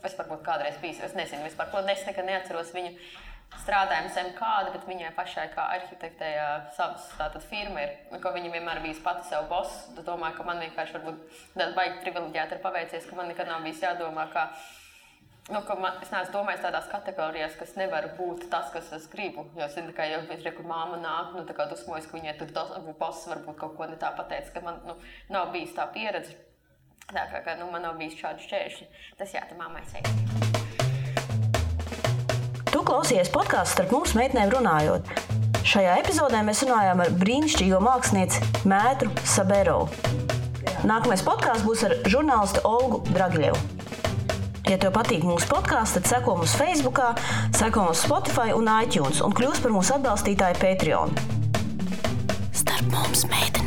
Speaker 2: es varbūt kādreiz bijis, es nezinu vispār, ko es nekad neatceros viņu strādājam zem kāda, bet viņai pašai kā arhitektei savas tātad firma ir, ko viņa vienmēr bijis pati sev boss. Es domāju, ka man vienkārši varbūt tāda baigi privileģēta ir paveicies, ka man nekad nav bijis jādomā, ka es neesmu domājis tādās kategorijās, kas nevar būt tas, kas es gribu. Jo es zinu, ka jau kur māma nāk, tā kā dusmojas, ka viņai tur boss varbūt kaut ko ne tā pateica, ka man nav bijis tā pieredze. Tā kā man nav bijis šādi šķēršļi. Tas tā mammai teikt.
Speaker 3: Tu klausies podkāstu Starp mums meitenēm runājot. Šajā epizodē mēs runājām ar brīnišķīgo mākslinieci Mētru Saberovu. Nākamais podkāsts būs ar žurnālistu Olgu Dragiļevu. Ja tev patīk mūsu podkāsts, tad seko mums Facebookā, seko mums Spotify un iTunes un kļūst par mūsu atbalstītāju Patreon. Starp mums meitenēm.